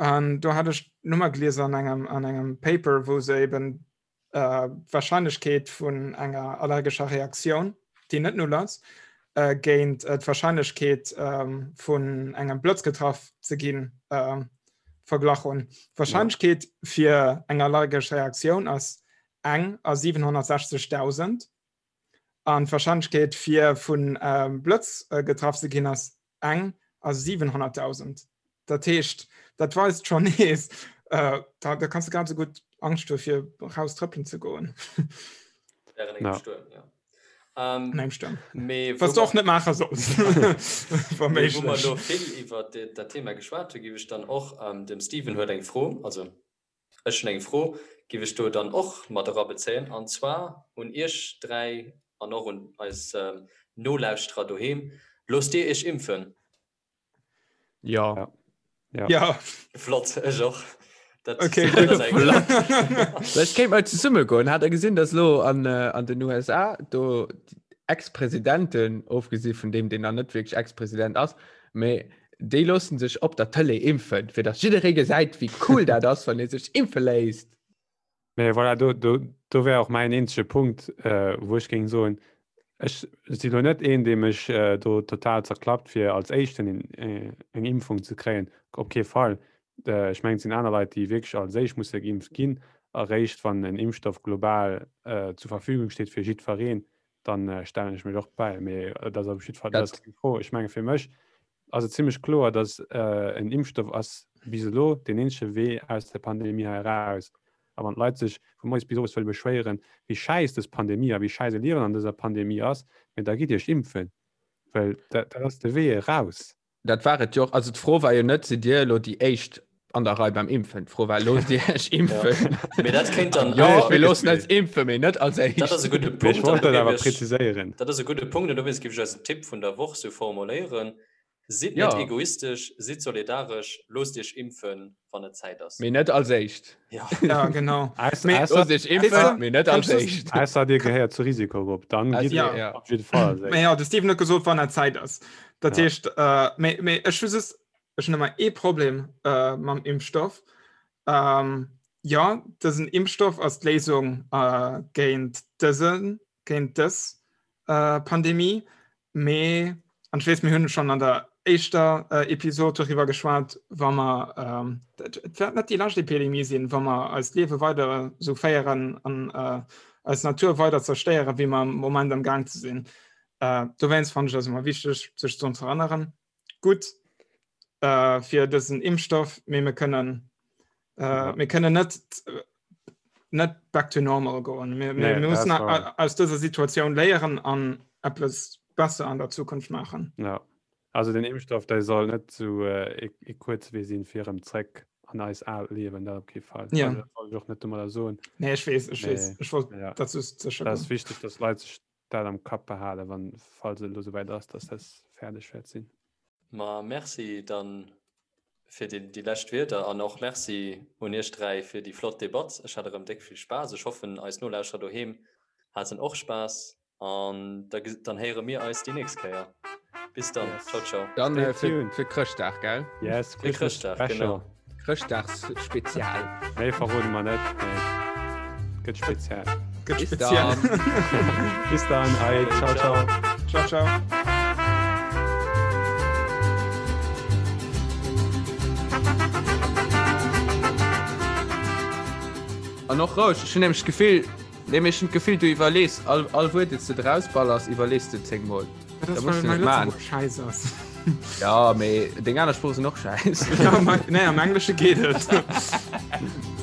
An do hat ech d'Nummer gelies an engem, an engem Paper, wou se eben äh, d'Wahrscheinlechkeet vun enger allergescher Reaktioun, déi net null ass, äh, géint äh, d'Wahrscheinlechkeet äh, vun engem Blëtz getraff ze ginn äh, verglach hunn. D'Wahrscheinlechkeet fir eng allergesch Reaktioun ass eng a 760.000 an d'Warscheinlechkeet fir vun Blëtz getraff ze ginn ass eng a 700.000. Dat heescht, dat weist schonn nees, da da kanns de grad esou gutt Angscht hu fir raus trëppelen ze goen. Während engem Stuerm, ja. An engem Stuerm. Wat s de och net maache solls, wa méiglech. Wou mer elo vill iwwer dat Thema geschwat hunn, géif ech dann och, dem Steven huet eng Fro, also Ech hunn eng Fro, giff ech do dann och mat erabezéien, an zwar un Iech 3 an och un eis Nolauschterer doheem, Loosst Dir Iech impfen? Jo. Ja. ja. Flott, ech och. Dat okay, Ech kéint mal zesumme goen. Hat der gesinn, dass lo an, äh, an den USA do Ex-Presidenten, ofgesi vun deem, deen nach net wierklech Ex-President ass, mee déi loossen sech op der Tëlee impfen, fir dass jidderee gesäit, wéi cool dat ass, wann ee sech impfe léisst. Mee voilà, do, do, do wär och mäin eenzege Punkt, äh, wou ech géing soen, ech si lo net een, dee mech äh, do total zerklappt, fir als Éischten en, äh, eng Impfung ze kréien. Op kee Fall. Äh, ech mengen, et sinn aner Leit, déi wierklech als éischt musse geimpft ginn. Eréischt wann en Impfstoff global äh, zur Verfügung steet fir jiddwereen, dann äh, stellen ech mech och bäi. Mee dat ass op jiddwer Fall, dat ass keng Fro. Ech menge fir mech ass et zimmlech kloer, datt en Impfstoff ass bis elo deen eenzege Wee aus der Pandemie hei eraus. A wann d'Leit sech vu moies bis owes wëlle beschwéieren, wéi schäiss dës Pandemie a wéi schäiss e Liewen an dëser Pandemie ass, mee da gitt Iech impfen, well dat ass de Wee eraus. Dat war et jo och. Also d'Fro war jo net, sidd Dir elo déi Éischt an der Rei beim Impfen? D'Fro war, loosst Dir Iech impfen? Mee dat kéint dann Jo, mir loossen eis impfen, mee net als Éischt. Dat ass e gudde Mee ech Punkt. wollt dat awer präziséieren. Dat ass e gudde Punkt an dowéinst géif ech eisen Tipp vun der Woch sou formuléieren, Sidd net egoistesch, sidd solidaresch, loosst Iech impfen, wann et Zäit ass. Mee net als Éischt. Ja, ja genau. Loosst Iech impfen, mee net als Éischt. Ausser Dir gehéiert zur Risikogrupp, dann gitt ja. op jidde Fall als Éischt. Mee jo, de Steven huet gesot, wann et Zäit ass. Dat heescht, mee, mee ech hu just, Ech hunn ëmmer ee Problem äh, mam Impfstoff. Ähm, ja, dësen Impfstoff ass d'Léisung äh, géint dësen, géint dës äh, Pandemie, mee an ech weess, mir hunn schonn an der éischter äh, Episod doriwwer geschwat, wa mer ähm, et wäert net déi lescht Epidemie sinn, wa mer eist Liewe weider esou féieren an äh, eis Natur weider zerstéieren, wéi mer am Moment am Gaang ze sinn. Äh, dowéinst fannen ech ass ëmmer wichteg, sech drun ze erënneren. Gutt äh, fir dësen Impfstoff, mee mir kënnen äh, ja. mir kënnen net net back to normal goen. Mir, mir, nee, mir müssen aus dëser Situatioun léieren an eppes besser an der Zukunft maachen. Ja. Also den Impfstoff der soll net zu äh, e, e kuerze Wee sinn fir erëm zréck an eis aalt Liewen, dat op kee Fall. Ja. Also, dat wollt ech och net domadder soen. Nee, ech weess, ech weess. Nee. Ech wollt Ja. dat just sécher Dat ass goen. wichteg, dass Leit sech dat am Kapp behalen, wann, falls et elo souwäit ass, dass dat fäerdeg wäert sinn. Ma merci dann fir déi, déi lescht Wierder an och Merci un iech 3 fir déi flott Debatt. Ech hat erëm déck vill Spaass. Ech hoffen eis Nolauschterer doheem haten och Spaass an da, dann héiere mir eis déi nächst Kéier. Bis dann. Yes. Ciao, ciao. Dann Stay äh, fir, tuned. fir Chrëschtdag, gell? Yes, Fir Christmas Chrëschtdag, Special. genau. Chrëschtdagsspezial. Méi verrode mer net, mee gëtt speziell. Gëtt Bis speziell. dann. Bis dann, allez, ciao, ciao. Ciao, ciao. An och roueg, ech hunn nämlech d'Gefill, nee, mee ech hunn d'Gefill, du iwwerlees all, all Wuert, deen s de drausballers, iwwerlees de zéngmol. Dat Da musst ass, du well net mäi maachen. Lëtzebuergesch schäiss ass. Ja, mee deng aner Sprooche sinn och schäiss. Ja, mein, nee, am Englesche geet et.